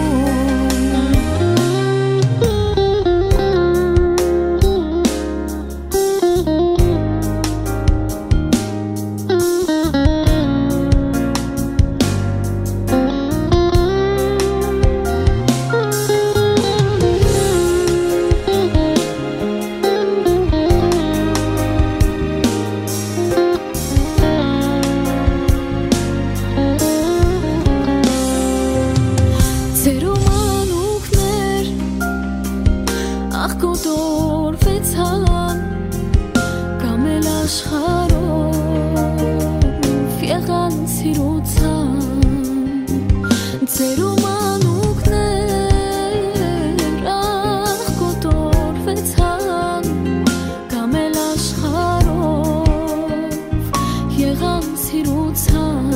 եղան սիրուցան։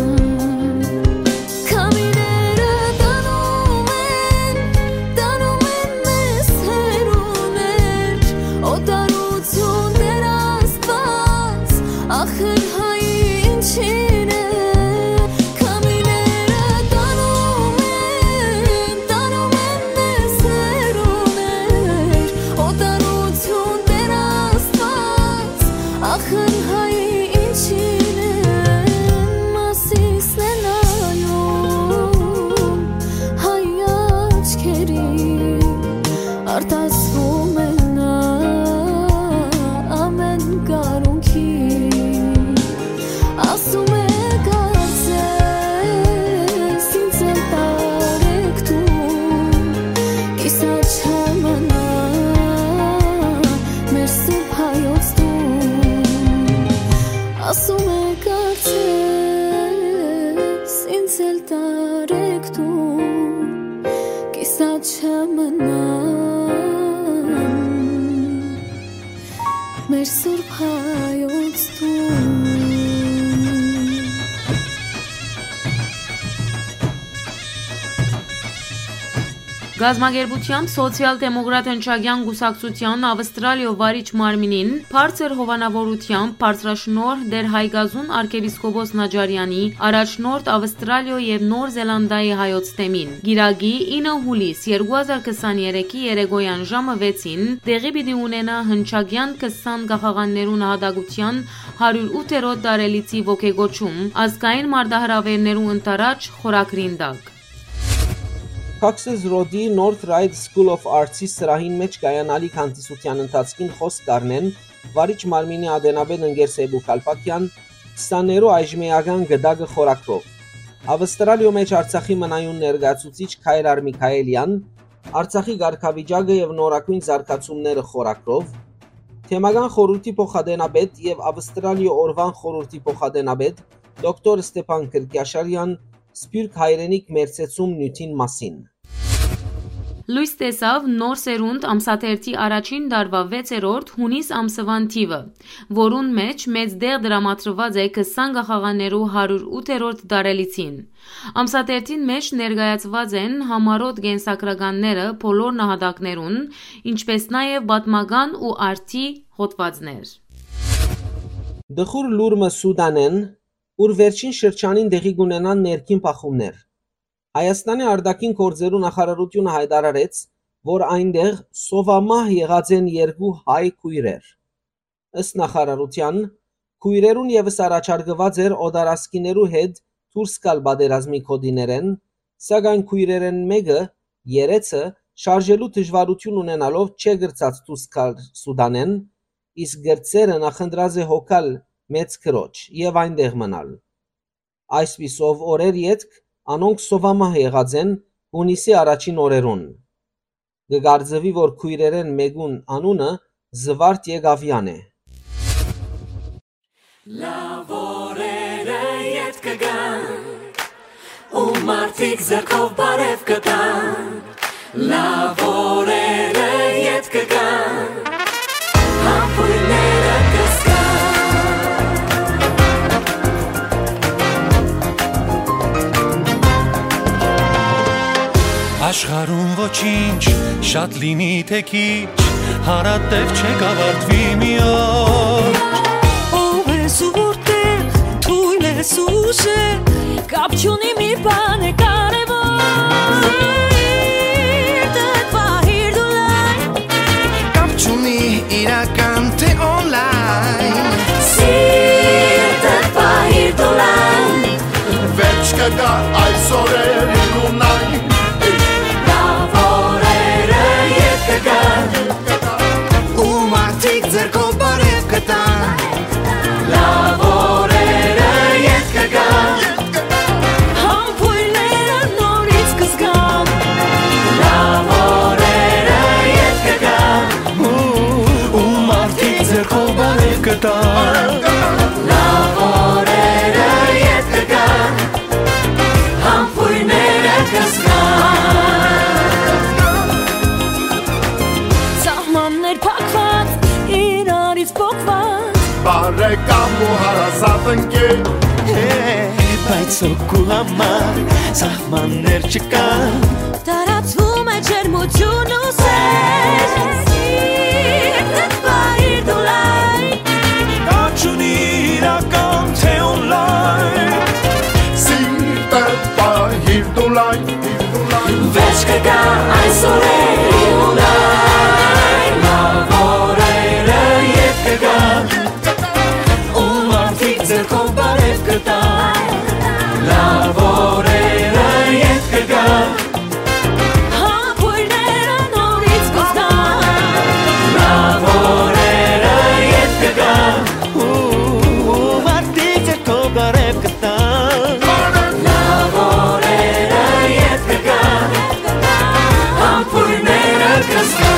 Քամիները տանում են, տանում են մեզ հեռուներ, օտարություն Տեր Աստված, ախր հայ ինչին է։ Քամիները տանում են, տանում են մեզ հեռուներ, օտարություն Տեր Աստված, ախր հայ ինչին են Մասիսն են ալում հայ աչքերին, արտասվում է նա ամէն կարունքի։ Ասում է կարծես ինձ էլ տարեք դու, կիսաչամնա մեր սուրբ հայոց տուն։ Ասում է կարծես ինձ էլ տարեք դու, կիսաչամնան մեր սուրբ հայոց տուն։ Կազմակերպութեամբ Սոցիալ-դեմոկրատ հնչակեան կուսակցութեան Ավստրալիոյ վարիչ մարմինին բարձր հովանաւորութեամբ բարձրաշնորհ Տեր Հայկազուն արքեպիսկոպոս Նաճարեանի, առաջնորդ Ավստրալիոյ եւ Նոր Զելանդիայի հայոց թեմին։ Կիրակի, ինը հուլիս երկու հազար քսաներեքի երեկոյեան ժամը վեցին տեղի պիտի ունենայ հնչակեան քսան կախաղաններու նահատակութեան հարիւր ութերորդ տարելիցի ոգեկոչում ազգային մարտահրաւէրներու ընդառաջ խորագրին տակ։ Cox's Road-ի North Ryde School of Arts-ի սրահին մէջ կայանալի հանդիսութեան ընթացքին խօսք կ'առնեն վարիչ մարմինի ատենապետ ընկեր Սեյպու Քալփաքեան, քսաներու այժմէական գդակը խորագրով։ Ավստրալիոյ մէջ Արցախի մնայուն ներկայացուցիչ Քայլար Միքայելեան, Արցախի կարգավիճակը եւ նորագոյն զարգացումները խորագրով, թեմական խորհուրդի փոխատենապետ եւ Ավստրալիոյ օրուան խորհուրդի փոխատենապետ դոկտոր Ստեփան Քրկիաշարեան, Սփիւռք հայրենիք մերձեցում նիւթին մասին։ Լոյս տեսաւ Նոր Սերունդ ամսաթերթի առաջին տարուայ վեցերորդ յունիս ամսուան թիւը, որուն մէջ մեծ տեղ տրամադրուած է քսան կախաղաններու հարիւր ութերորդ տարելիցին։ Ամսաթերթին մէջ ներկայացուած են համառօտ կենսագրականները բոլոր նահատակներուն, ինչպէս նաեւ պատմական ու արդի հոդուածներ։ Տխուր լուր մը Սուդանէն, ուր վերջին շրջանին տեղի կ'ունենան ներքին բախումներ։ Հայաստանի արտաքին գործերու նախարարութիւնը յայտարարեց, որ այնտեղ սովամահ եղած են երկու հայ քոյրեր։ Ըստ նախարարութեան, քոյրերուն եւս առաջարկուած էր օտարազգիներու հետ դուրս գալ պատերազմի գօտիներէն, սակայն քոյրերէն մէկը, երեցը, շարժելու դժուարութիւն ունենալով չէ կրցած դուրս գալ Սուդանէն, իսկ կրտսերը նախընտրած է հոգալ մեծ քրոջ եւ այնտեղ մնալ։ Այսպիսով, օրեր ետք անոնք սովամահ եղած են յունիսի առաջին օրերուն։ Կը կարծուի, որ քոյրերէն մէկուն անունը Զուարթ Եկաւեան է։ Լաւ օրերը ետք կը գան, ու մարդիկ ձեռքով բարեւ կը տան։ Լաւ օրերը ետք կը գան, համբոյները կը զգան։ Աշխարհում ոչինչ, շատ լինի թե քիչ, հարատև չէ կավարտվի մի օր։ Ո՞վ է զուր տեղ, թույլ ես ուժը, կապ չունի, մի բան է կարևոր։ Սիրտդ պահիր դու լայն։ Կապ չունի իրական թե օնլայն։ Սիրտդ պահիր դու լայն։ Վերջ կը գայ այս օրերին ու նայն։ Լաւ օրերը ետք կը գան, ու մարդիկ ձեռքով բարեւ կը տան։ Լաւ օրերը ետք կը գան, համբոյն Բայց հոգու համար սահմաններ չկան։ Տարածվում է ջերմություն ու սեր, սիրտդ պահիր դու լայն։ Կաչուն իրական թե օնլայն, սիրտդ պահիր դու լայն։ Վերջ կգայ այսօր է, ու լայն, լաւորերը ետ կգայ, ու մարդիկ ձեռքով բարեւ կտան, լաւորերը ետ կգայ, համբոյրները նորից կզգան, լաւորերը ետ կգայ, ու մարդիկ ձեռքով բարեւ կտան, լաւորերը ետ կգայ, համբոյրները կզգան։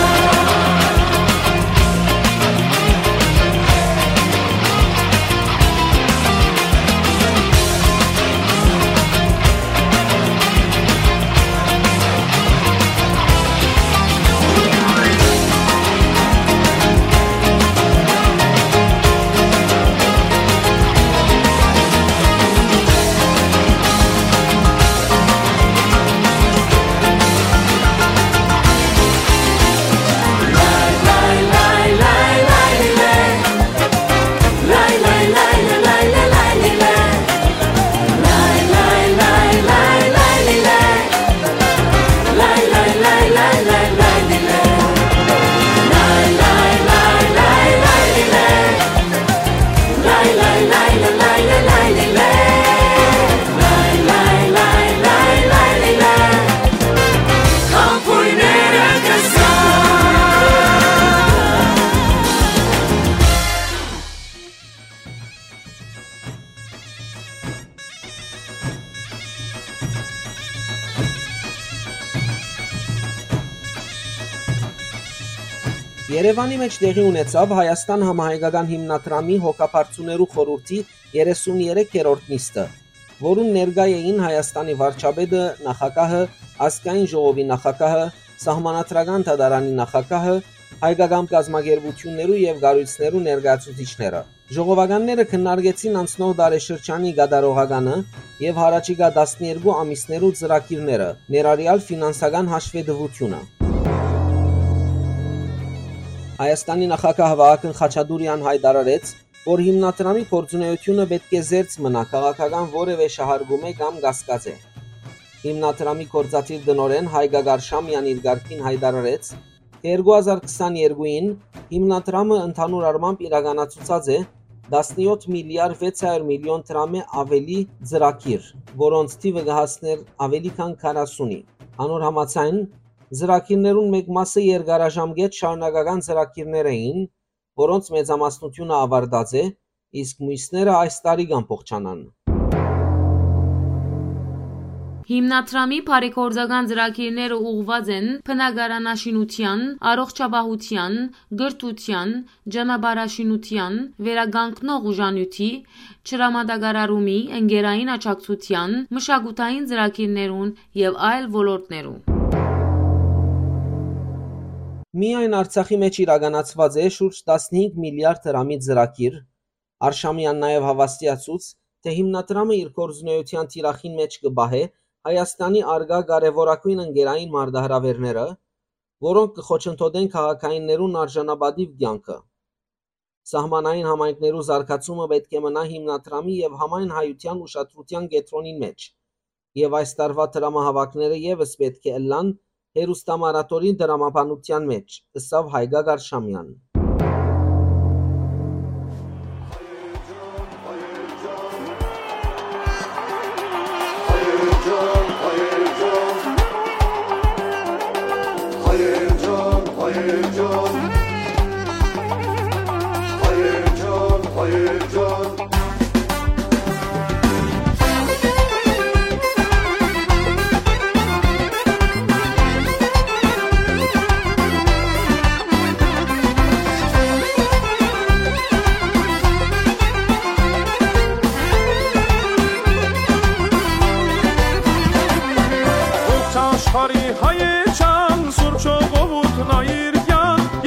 Երեւանի մէջ տեղի ունեցաւ Հայաստան համահայկական հիմնադրամի հոգաբարձուներու խորհուրդի երեսուն երեք երրորդ նիստը, որուն ներկայ էին Հայաստանի վարչապետը, նախագահը, ազգային ժողովի նախագահը, սահմանադրական դատարանի նախագահը, հայկական կազմակերպութիւններու եւ կառոյցներու ներկայացուցիչները։ Ժողովականները քննարկեցին անցնող տարեշրջանի կատարողականը եւ յառաջիկայ տասներկու ամիսներու ծրագիրները, ներառեալ ֆինանսական հաշվետվութիւնը։ Հայաստանի նախագահ Վահագն Խաչատուրեան յայտարարեց, որ հիմնադրամի գործունեութիւնը պէտք է զերծ մնայ քաղաքական որեւէ շահարկումէ կամ կասկածէ։ Հիմնադրամի գործադիր տնօրէն Հայկա Գարշամեան իր կարգին յայտարարեց, Երկու հազար քսաներկուին հիմնադրամը ընդհանուր առմամբ իրականացուցած է տասնեօթ միլիարդ վեց հարիւր միլիոն դրամէ աւելի ծրագիր, որոնց թիւը կը հասնէր աւելի քան քառասունի։ Անոր համաձայն, ծրագիրներուն մէկ մասը երկարաժամկետ շարունակական ծրագիրներ էին, որոնց մեծամասնութիւնը աւարտած է, իսկ միւսները այս տարի կ'ամբողջանան։ Հիմնադրամի բարեգործական ծրագիրները ուղղուած են բնակարանաշինութեան, առողջապահութեան, կրթութեան, ճանապարհաշինութեան, վերականգնող ուժանիւթի, ջրամատակարարումի, ընկերային աջակցութեան, մշակութային ծրագիրներուն եւ այլ ոլորտներու։ Միայն Արցախի մէջ իրականացուած է շուրջ տասնհինգ միլիարդ դրամի ծրագիր, Արշամեան նաեւ հաւաստիացուց, թէ հիմնադրամը իր գործունեութեան թիրախին մէջ կը պահէ Հայաստանի առկայ կարեւորագոյն ընկերային մարտահրաւէրները, որոնք կը խոչընդոտեն քաղաքայիններուն արժանապատիւ կեանքը։ Սահմանային համայնքներու զարգացումը պէտք է մնայ հիմնադրամի եւ համայն հայութեան ուշադրութեան կեդրոնին մէջ, եւ այս տարուայ դրամահաւաքները եւս պէտք է ըլլան հեռուստամարաթոնի դրամաբանութեան մէջ, ըսաւ Հայկա Գարշամեան։ Ողջ աշխարհի հայեչան, սուրբ ժողովուրդն այր կեանք,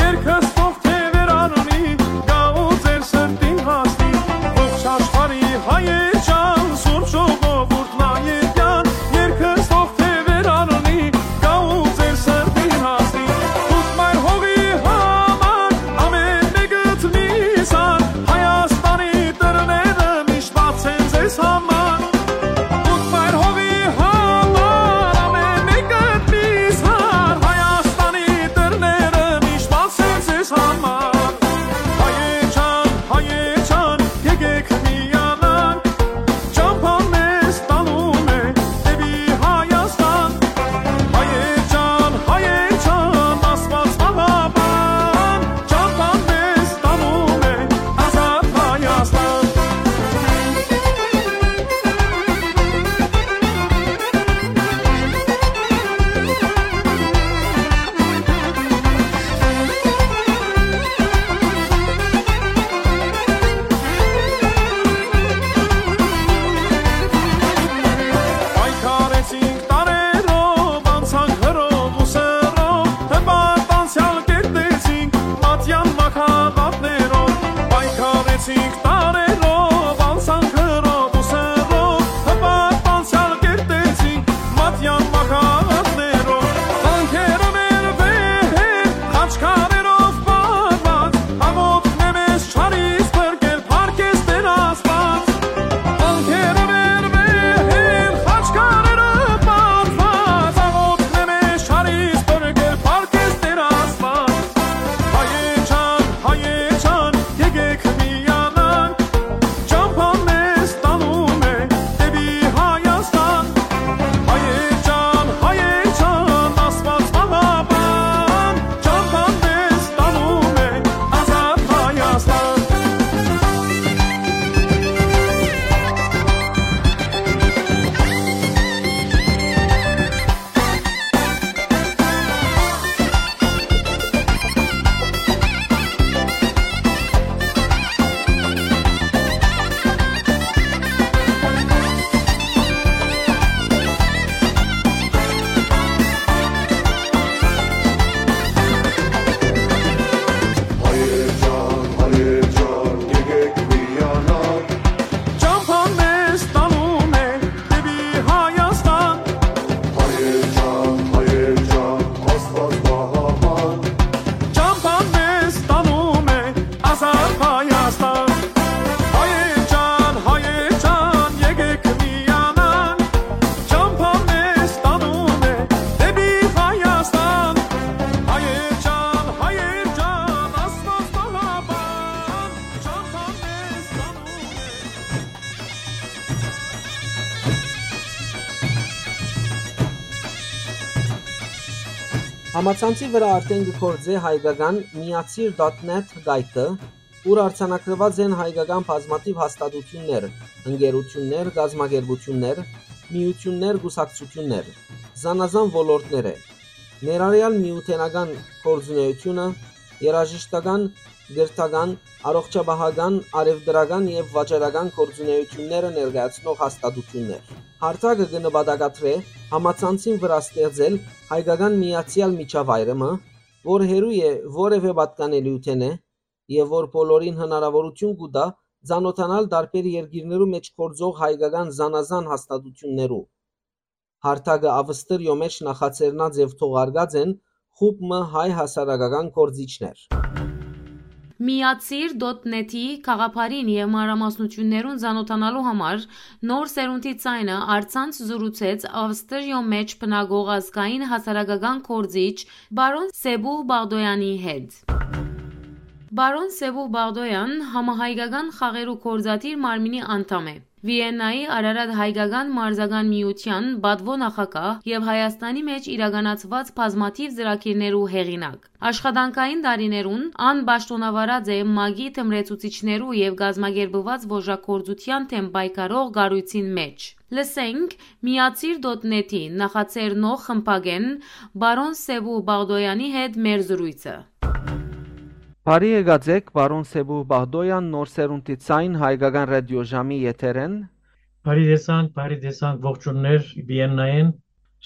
Համացանցի վրայ արդէն կը գործէ հայկական միացիր դոթ նեթ կայքը, ուր արձանագրուած են հայկական բազմաթիւ հաստատութիւններ, ընկերութիւններ, կազմակերպութիւններ, միութիւններ, կուսակցութիւններ, զանազան ոլորտներէ, ներառեալ միութենական գործունէութիւնը, երաժշտական, կրթական, առողջապահական, առեւտրական եւ վաճառական գործունէութիւնները ներկայացնող հաստատութիւններ։ Հարթակը կը նպատակադրէ համացանցին վրայ ստեղծել հայկական միացեալ միջավայրը մը, որ հեռու է որեւէ պատկանելիութենէ եւ որ բոլորին հնարաւորութիւն կու տայ ծանօթանալ տարբեր երկիրներու մէջ գործող հայկական զանազան հաստատութիւններու։ Հարթակը Ավստրիոյ մէջ նախաձեռնած եւ թողարկած են խումբ մը հայ հասարակական գործիչներ։ Միացիր դոթ նեթի գաղափարին եւ մանրամասնութիւններուն ծանօթանալու համար Նոր սերունդի ձայնը առցանց զրուցեց Ավստրիոյ մէջ բնակող ազգային հասարակական գործիչ պարոն Սեբուհ Բաղդոյանի հետ։ Պարոն Սեբուհ Բաղդոյան համահայկական խաղերու գործադիր մարմինի անդամ է։ Վիեննայի Արարատ հայկական մարզական միութեան պատուոյ նախագահ եւ Հայաստանի մէջ իրականացուած բազմաթիւ ծրագիրներու հեղինակ։ Աշխատանքային տարիներուն ան պաշտօնավարած է մագի թմրեցուցիչներու եւ կազմակերպուած ոժագործութեան դէմ պայքարող կառոյցին մէջ։ Լսենք Միացիր դոթ նեթի նախաձեռնող խմբագէն պարոն Սեբուհ Բաղդոյանի հետ մեր զրոյցը։ Բարի եկած էք, պարոն Սեբուհ Բաղդոյան, Նոր սերունդի ձայն, հայկական ռադիոժամի եթերէն։ Բարի տեսանք, բարի տեսանք, ողջուններ Վիեննայէն։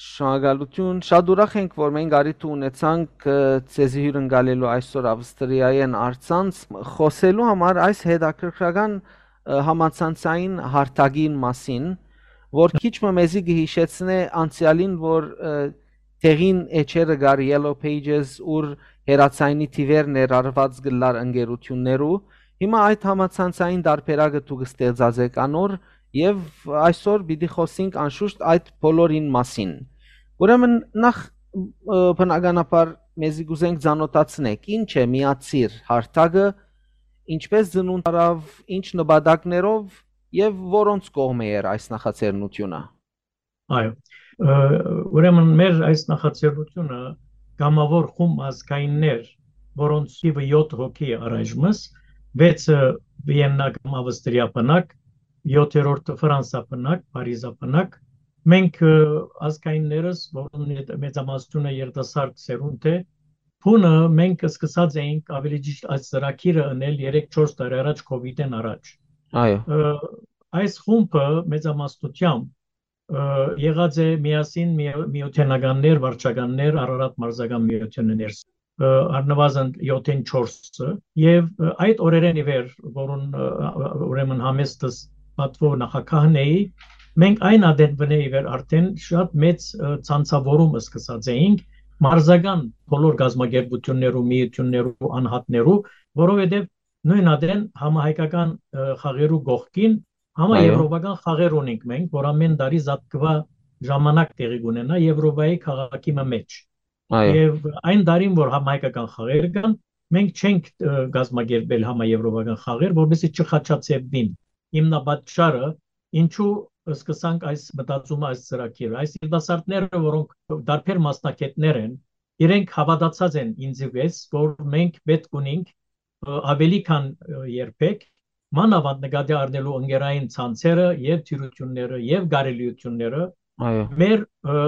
Շնորհակալութիւն, շատ ուրախ ենք, որ մենք առիթը ունեցանք, ը, ձեզի հիւրընկալելու այսօր Ավստրիայէն առցանց խօսելու համար այս հետաքրքրական, ը, համացանցային հարթակին մասին, որ քիչ մը մեզի կը յիշեցնէ անցեալին, որ, ը, տեղին էջերը կար Yellow Pages, ուր հեռաձայնի թիւեր ներառուած կ'ըլլար ընկերութիւններու։ Հիմա այդ համացանցային տարբերակը դուք ստեղծած էք անոր, եւ այսօր պիտի խօսենք անշուշտ այդ բոլորին մասին։ Ուրեմն նախ, ը, բնականաբար մեզի կ'ուզենք ծանօթացնեք, ի՞նչ է Միացիր հարթակը, ինչպե՞ս ծնունդ առաւ, ի՞նչ նպատակներով եւ որոնց կողմէ էր այս նախաձեռնութիւնը։ Այո, ը, ուրեմն մեր այս նախաձեռնութիւնը կամաւոր խումբ ազգայիններ, որոնց թիւը յոթ հոգի է առայժմս, վեցը Վիեննա կամ Ավստրիա բնակ, յոթերորդը Ֆրանսա բնակ, Փարիզա բնակ, մենք, ը, ազգայիններս, որոնց մեծ-, մեծամասնությունը երիտասարդ սերունդ է, բունը մենք սկսած էինք ավելի ճիշտ այս ծրագիրը ընել երեք-չորս տարի առաջ, COVID-ին առաջ։ Այո։ Ը, այս խումբը մեծամասնությամբ, ը, եղած է միասին մի-, միութենականներ, վարչականներ, Արարատ մարզական միութենը ներս, ը, առնվազն յոթին չորսը, եւ, ը, այդ օրերէն ի վեր, որուն, ը, ը, ուրեմն համեստս պատվով նախագահն էի, մենք այն ադենվնէ ի վեր արդեն շատ մեծ, ը, ցանցավորում սկսած էինք մարզական բոլոր գազམ-ակերպութիւններու, միութիւններու, անհատներու, որովհետեւ նոյն ադեն համահայկական, ը, խաղերու կողքին համաեւրոպական խաղեր ունենք մենք, որ ամէն տարի զատկուայ ժամանակ տեղի կունենայ Եւրոպայի քաղաքի մը մէջ։ Այո։ Եւ այն տարին, որ համահայկական խաղեր կան, մենք չենք, ը, կազմակերպել համաեւրոպական խաղեր, որպեսզի չխաչաձևվին։ Հիմնապատճառը, ինչու սկսանք այս մտածումը, այս ծրագիրը, այս երիտասարդները, որոնք տարբեր մասնագետներ են, իրենք հաւատացած են ինձի վեց, որ մենք պէտք ունենք, ը, ավելի քան, ը, երբեք, մանաւանդ նկատի առնելու ընկերային ցանցերը եւ դյուրութիւնները եւ կարելիութիւնները, այո, մեր, ը,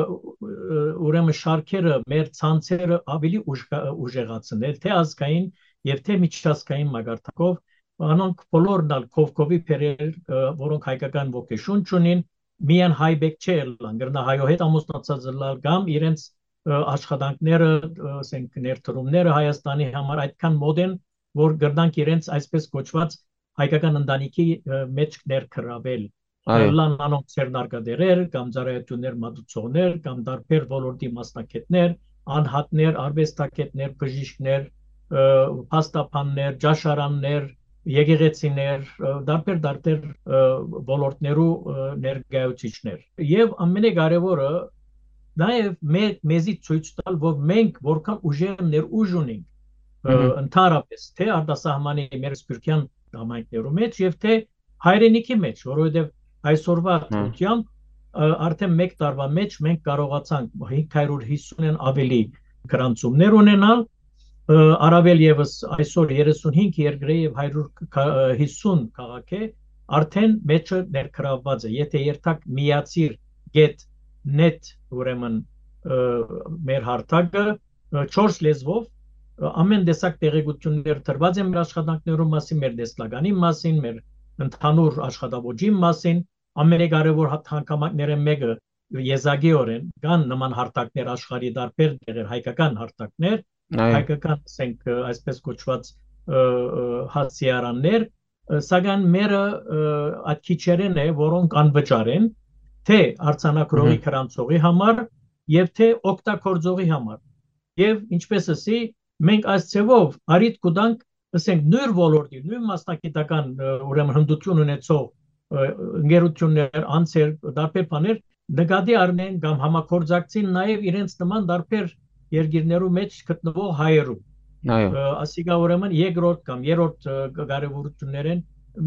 ը, ուրեմն շարքերը, մեր ցանցերը ավելի ուժ-, ուժեղացնել, թե ազգային եւ թե միջազգային մակարդակով, անոնք բոլորն ալ կովկովի բերել, ը, որոնք հայկական ոգեշունչ ունին, միայն հայ բեք չէ ըլլան, կրնայ հայոյ հետ ամուսնացած ըլլալ կամ իրենց, ը, աշխատանքները, ը, ասենք, ներդրումները Հայաստանի համար այդքան մոտ են, որ կրնանք իրենց այսպես կոչված հայկական ընտանիքի, ը, մեջ ներգրավել։ Այո։ Ըլլան անոնք ձեռնարկատիրեր կամ ծառայություններ մատուցողներ կամ տարբեր ոլորտի մասնագետներ, անհատներ, արուեստագետներ, բժիշկներ, ը, փաստաբաններ, ճաշարաններ, եկեղեցիներ, ը, տարբեր, տարբեր, ը, ոլորտներու, ը, ներկայացուցիչներ։ Եւ ամենակարեւորը, նաեւ մե-, մեզի ցոյց տալ, որ մենք որքան ուժեր ներուժ ունենք, ը, Մհմ։ Ընդհանրապես, թե արտասահմանի մեր սփիւռքեան համայնքներու մեջ եւ թե հայրենիքի մեջ, որովհետեւ այսօրվա Հմ։ դրությամբ, ը, արդեն մեկ տարվա մեջ մենք կարողացանք հինգ հարիւր հիսունէն ավելի գրանցումներ ունենալ, առավել եւս այսօր երեսունհինգ երկրէ եւ հարիւր յիսուն քաղաք է, արդեն մեջը ներգրաւված է։ Եթե երթակ միացիր գեթ նեթ, ուրեմն մեր հարթակը, չորս լեզվով, ամեն տեսակ տեղեկություններ տրված են մեր աշխատանքներու մասին, մեր տեսլականի մասին, մեր ընդհանուր աշխատաոճին մասին, ամենակարեւոր հանգամանքներէն մէկը, եզակիօրէն կան նման հարթակներ աշխարհի տարբեր տեղեր, հայկական հարթակներ, հայկական, ասենք, այսպես կոչուած, հասցեարաններ, սակայն մերը այդ քիչերէն է, որոնք անվճար են, թէ արձանագրողի, գրանցողի համար եւ թէ օգտագործողի համար։ Եւ ինչպես ասի, մենք այս ձեւով առիթ կու տանք, ասենք, նոյր ոլորտի, նոյն մասնագիտական, ուրեմն, հմտութիւն ունեցող ընկերութիւններ, անձեր, տարբեր բաներ նկատի առնեն կամ համագործակցին նաեւ իրենց նման տարբեր երկիրներու մէջ գտնուող հայերու։ Այո։ Ասիկա, ուրեմն, երկրորդ կամ երրորդ կարեւորութիւններէն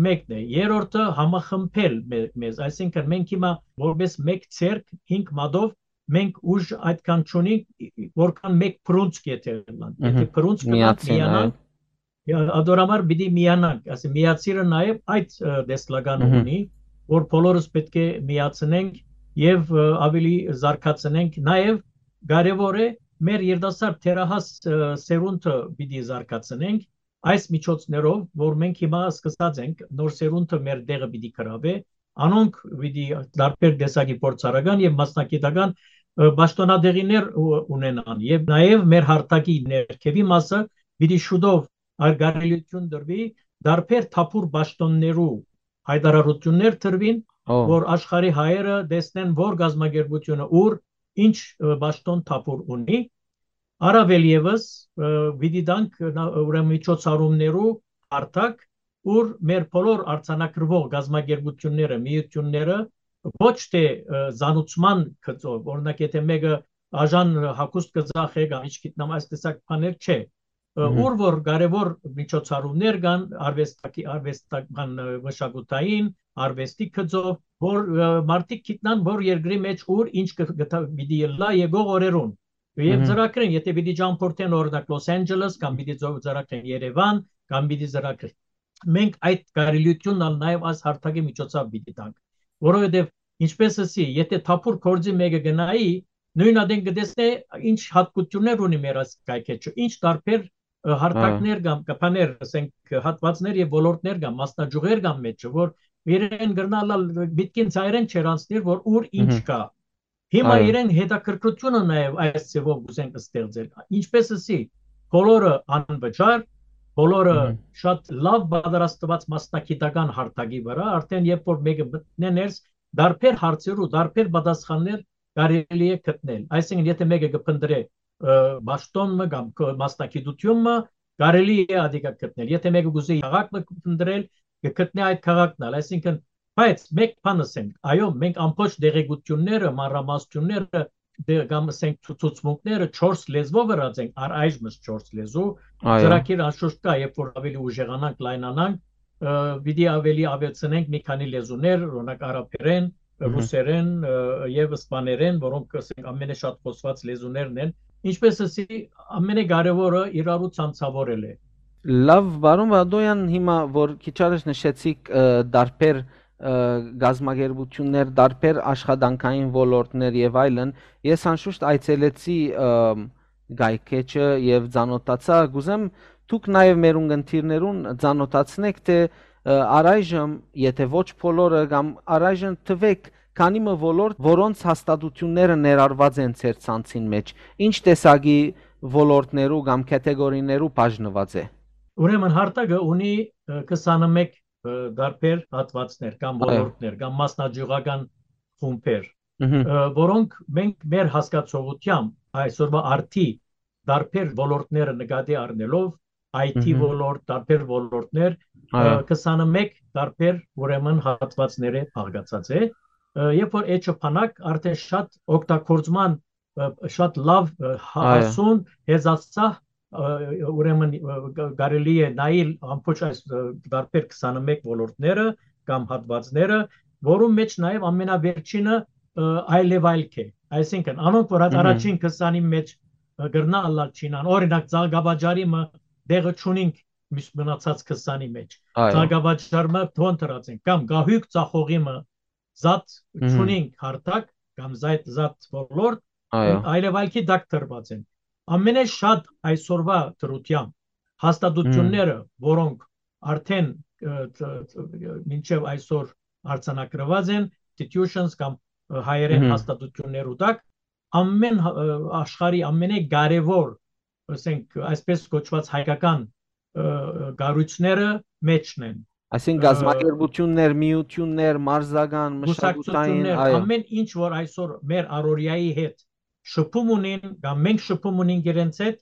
մէկն է։ Երրորդը՝ համախմբել մեզ, այսինքն՝ մենք հիմա որպես մէկ ցերկ, հինգ մատով, մենք ուժ այդքան չունենք, որքան մէկ բռունցք եթե ըլլանք։ Եթե բռունցք ըլլանք, միացին, միանանք, ադոր համար պիտի միանանք, ասի, միացիրը նաեւ այդ տեսլականը ունի, որ բոլորս պէտք է միացնենք եւ ավելի զարգացնենք։ Նաեւ կարեւոր է, մեր երիտասարդ, թերահաս սերունդը պիտի զարգացնենք այս միջոցներով, որ մենք հիմա սկսած ենք, նոր սերունդը մեր տեղը պիտի գրավէ, անոնք պիտի տարբեր տեսակի փորձառական եւ մասնագիտական պաշտոնատեղիներ ունենան, եւ նաեւ մեր հարթակի ներքեւի մասը պիտի շուտով, ար կարելիություն տրուի, տարբեր թափուր պաշտոններու հայտարարություններ տրուին, որ աշխարհի հայերը տեսնեն, որ գազམ-ակերպութիւնը ուր, ինչ պաշտոն թափուր ունի։ Առավել եւս պիտի տանք, ուրեմն, միջոցառումներու հարթակ, ուր մեր բոլոր արձանագրուող գազམ-ակերպութիւնները, միութիւնները ոչ թէ զանուցման գծով, օրինակ, եթե մէկը աժան հագուստ կը ծախէ կամ ինչ գիտնամ, այս տեսակ բաներ չէ, ուր որ կարեւոր միջոցառումներ կան, արվեստակի-, արվեստական, մշակութային, արվեստի գծով, որ մարդիկ գիտնան, որ երկրի մէջ ուր ինչ կը, կը, պիտի ըլլայ եկող օրերուն։ Եւ ծրագրեն, եթե պիտի ճամփորդեն, օրինակ, Լոս Անջելես, կամ պիտի ծրագրեն Երեւան, կամ պիտի ծրագրեն, մենք այդ կարելիությունն ալ նաեւ այս հարթակի միջոցով պիտի տանք, որովհետեւ, ինչպես ասի, եթե թափուր գործի մէկը գնայի, նոյն ատեն կը տեսնէ ինչ յատկություններ ունի մեր այս կայքէջը, ինչ տարբեր հարթակներ կամ կը բաներ, ասենք, հատվածներ եւ ոլորտներ կամ մասնաճյուղեր կամ մէջը, որ իրեն կրնալ ալ միտքին ծայրեն չեր անցնիր, որ ուր ինչ կա։ Հիմա իրեն հետաքրքրությունը նաեւ այս ձեւով կ'ուզեն ստեղծել։ Ինչպես ասի, բոլորը անվճար, բոլորը շատ լավ պատրաստված մասնագիտական հարթակի վրա, արդեն երբ որ մէկը մտնէ ներս, տարբեր հարցերու, տարբեր պատասխաններ կարելի է գտնել։ Այսինքն, եթե մէկը կը փնտրէ պաշտոն մը կամ մասնագիտութիւն մը, կարելի է ադիկա գտնել։ Եթե մէկը կ'ուզի քաղաք մը փնտրել, կը գտնէ այդ քաղաքն ալ։ Այսինքն, բայց մէկ բան ասենք, այո, մենք ամբողջ տեղեկությունները, մանրամասնությունները, դե, կամ, ասենք, ցուցմունքները չորս լեզվով ըրած ենք, առ այժմ չորս լեզու։ Ծրագիր անշուշտ կա, երբ որ ավելի ուժեղանանք, լայնանանք, պիտի ավելի ավելցնենք մի քանի լեզուներ, օրինակ, արաբերեն, ռուսերեն, ը, եւ սպաներեն, որոնք, ասենք, ամենաշատ խոսված լեզուներն են։ Ինչպես ասի, ամենակարեւորը իրարու ցանցավորել է։ Լավ, պարոն Վադոյան, հիմա որ քիչ առաջ նշեցիք, ը, տարբեր, ը, գազམ-ակերպություններ, տարբեր աշխատանքային ոլորտներ եւ այլն, ես անշուշտ այցելեցի, ը, կայքէջը եւ ծանոթացայ։ Կ'ուզեմ դուք նաեւ մեր ունգընտիրներուն ծանոթացնեք, թէ, ը, առայժմ, եթե ոչ բոլորը, կամ առայժմ թուեք քանի մը ոլորտ, որոնց հաստատությունները ներառված են ձեր ցանցին մէջ, ինչ տեսակի ոլորտներու կամ կատեգորիներու բաժնուած է։ Ուրեմն, հարթակը ունի, ը, քսանմեկ, ը, տարբեր հատվածներ կամ ոլորտներ կամ մասնաճյուղական խումբեր, ը, որոնք մենք մեր հասկացողությամբ այսօրվա արդի տարբեր ոլորտները նկատի առնելով, I T ոլորտ, տարբեր ոլորտներ, ը, քսանմեկ տարբեր, ուրեմն, հատվածները բաղկացած է, ը, երբ որ էջը բանակ արդեն շատ օգտագործման, ը, շատ լավ, ը, հա-, Այո։ Հասուն, հեզածա, ը, ուրեմն, ը, գ-, կարելի է նայել ամբողջ այս, ը, տարբեր քսանմեկ ոլորտները կամ հատվածները, որու մեջ նաև ամենավերջինը, ը, այլևայլք է։ Այսինքն, անոնք, որ այդ առաջին քսանին մեջ կրնայ ըլլալ չինան։ Օրինակ, ծաղկավաճառի մը տեղը չունինք մյուս մնացած քսանի մէջ։ Այո։ Ծաղկավաճառ մը թոն դրած ենք, կամ գահույք ծախողի մը զատ Մհմ։ չունինք հարթակ, կամ զայդ, զատ ոլորտ, Այո։ այլեւալքի տակ դրված են։ Ամենէ շատ այսօրվա դրությամբ հաստատությունները, որոնք արդեն, ը, տ-, տ-, մինչեւ այսօր արձանագրված են, institutions կամ, ը, հայերեն Մհմ։ հաստատություններու տակ, ամեն հա-, ը, աշխարհի ամենէ կարեւոր, ասենք, այսպես կոչված հայկական, ը, ը, կառոյցները մեջն են։ Այսինքն Ը, գազམ-ակերպություններ, միություններ, մարզական, մշակութային, կուսակցություններ, այո։ ամեն ինչ, որ այսօր մեր առօրյայի հետ շփում ունին, կամ մենք շփում ունենք իրենց հետ,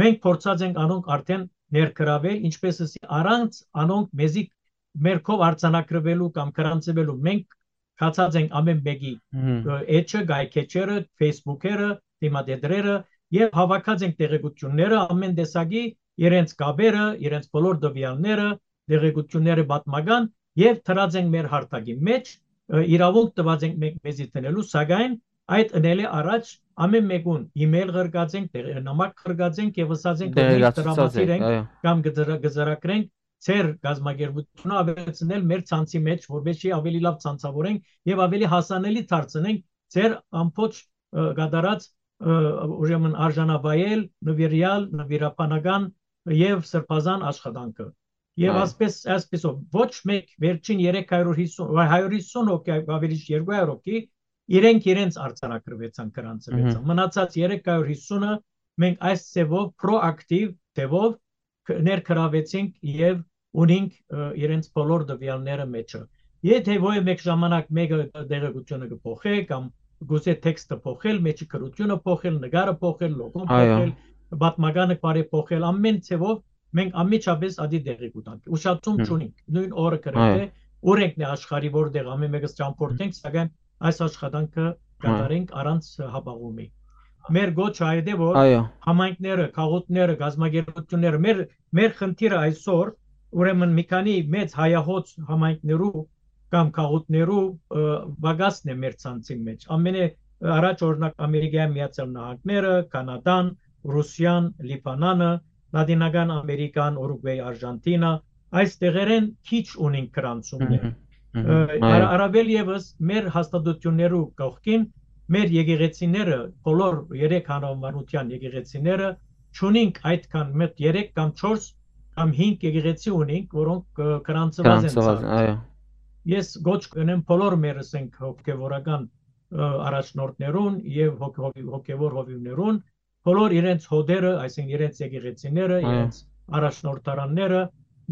մենք փորձած ենք անոնք արդեն ներգրավել, ինչպես ասի, առանց անոնք մեզի մեր քով արձանագրվելու կամ գրանցվելու, մենք գացած ենք ամեն մեկի, Մհմ։ ը, էջը, գայքէջերը, Facebook-երը, դիմատետրերը, եւ հավաքած ենք տեղեկությունները, ամեն տեսակի, իրենց կապերը, իրենց բոլոր տվեալները, տեղեկությունները պատմական, եւ դրած ենք մեր հարթակի մեջ, ը, իրաւունք տված ենք մենք մեզի դնելու, սակայն այդ ընելէ առաջ ամեն մեկուն email ղրկած ենք, տեղ-, նամակ ղրկած ենք եւ ըսած ենք, որ մենք Տեղեկացուցած տրամադրիր ենք, ենք, այո։ կամ կծրա-, կծրագրենք ձեր կազմակերպությունը ավելցնել մեր ցանցի մեջ, որպեսզի ավելի լավ ցանցավորենք եւ ավելի հասանելի դարձնենք ձեր ամբողջ, ը, կատարած, ը, ուրեմն արժանավայել, նվիրյալ, նվիրաբանական եւ սրբազան աշխատանքը։ Եւ Այո։ ասպես, այսպեսով, ոչ մեկ վերջին երեք հարյուր հիսուն, վայ, հարյուր հիսուն հոգի, ավելի երկու հարյուր հոգի, իրենք իրենց արձանագրվեցան, գրանցվեցան։ Մհմ։ Մնացած երեք հարյուր հիսունը մենք այս ձևով, պրոակտիվ ձևով կ-, ներգրավեցինք եւ ունինք, ը, իրենց բոլոր տվեալները մեջը։ Եթե ոյ մեկ ժամանակ մեկը տեղեկությունը կը փոխէ կամ գուզէ տեքստը փոխել, մեջի գրությունը փոխել, նկարը փոխել, լոգոն Այո։ փոխել, պատմականը բարեփոխել, ամեն ձևով մենք անմիջապես ադի տեղի կու տանք։ Ուշացում Հմ։ չունինք, նոյն օրը Այո։ գրեթէ, ուր ենք նե աշխարհի, որտեղ ամեն մեկս ճամփորդենք, սակայն այս աշխատանքը Այո։ կատարենք առանց հապաղումի։ Մեր գոչը այդ է, որ Այո։ համայնքները, քաղաքները, գազམ-ակերպությունները, մեր, մեր խնդիրը այսօր, ուրեմն մի քանի մեծ հայահոծ համայնքներու կամ քաղաքներու, ը, պակասն է մեր ցանցին մեջ։ Ամենէ առաջ, օրինակ, Ամերիկայի Միացյալ Նահանգները, Կանադան, Ռուսիան, Լիբանանը, Լատինական Ամերիկան, Ուրուգվեյ, Արժանտինա, այս տեղերեն քիչ ունին գրանցումներ։ Մհմ, մհմ, Ը, այո։ արա-, առավել եւս մեր հաստատություններու կողքին մեր եկեղեցիները, բոլոր երեք հանրամանության եկեղեցիները, չունինք այդքան մտ երեք կամ չորս կամ հինգ եկեղեցի ունինք, որոնք, ը, գրանցված են Գրանցված, ցանց։ այո։ Ես գոչ կնեմ բոլոր մեր, ասենք, հոգեվորական, ը, առաջնորդներուն եւ հոգ-, հովի-, հոգեվոր հովիւներուն, բոլոր իրենց հոտերը, այսինքն իրենց եկեղեցիները, Այո։ իրենց առաջնորդարանները,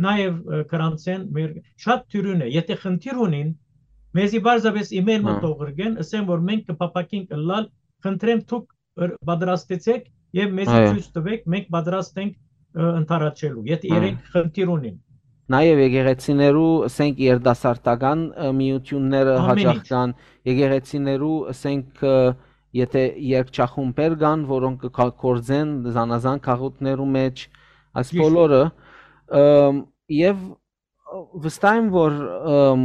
նաեւ, ը, գրանցեն մեր շատ դիւրին է։ Եթե խնդիր ունին, մեզի պարզապէս email մը Այո։ թող ղրկեն, ասեն, որ մենք կփափաքենք ըլլալ, խնդրեմ դուք ըր-, պատրաստեցեք եւ մեզի Այո։ ցոյց տվեք, մենք պատրաստ ենք, ը, ընդառաջելու, եթե Այո։ իրենք խնդիր ունին։ Նաեւ եկեղեցիներու, ասենք, երիտասարդական, ը, միությունները Ամեն հաճախ ինչ։ կան, եկեղեցիներու, ասենք, ը, եթե երգչախումբեր կան, որոնք կը կա-, գործեն զանազան քաղաքներու մեջ, այս Ճիշտ։ բոլորը, ըմ, եւ վստահ եմ, որ, ըմ,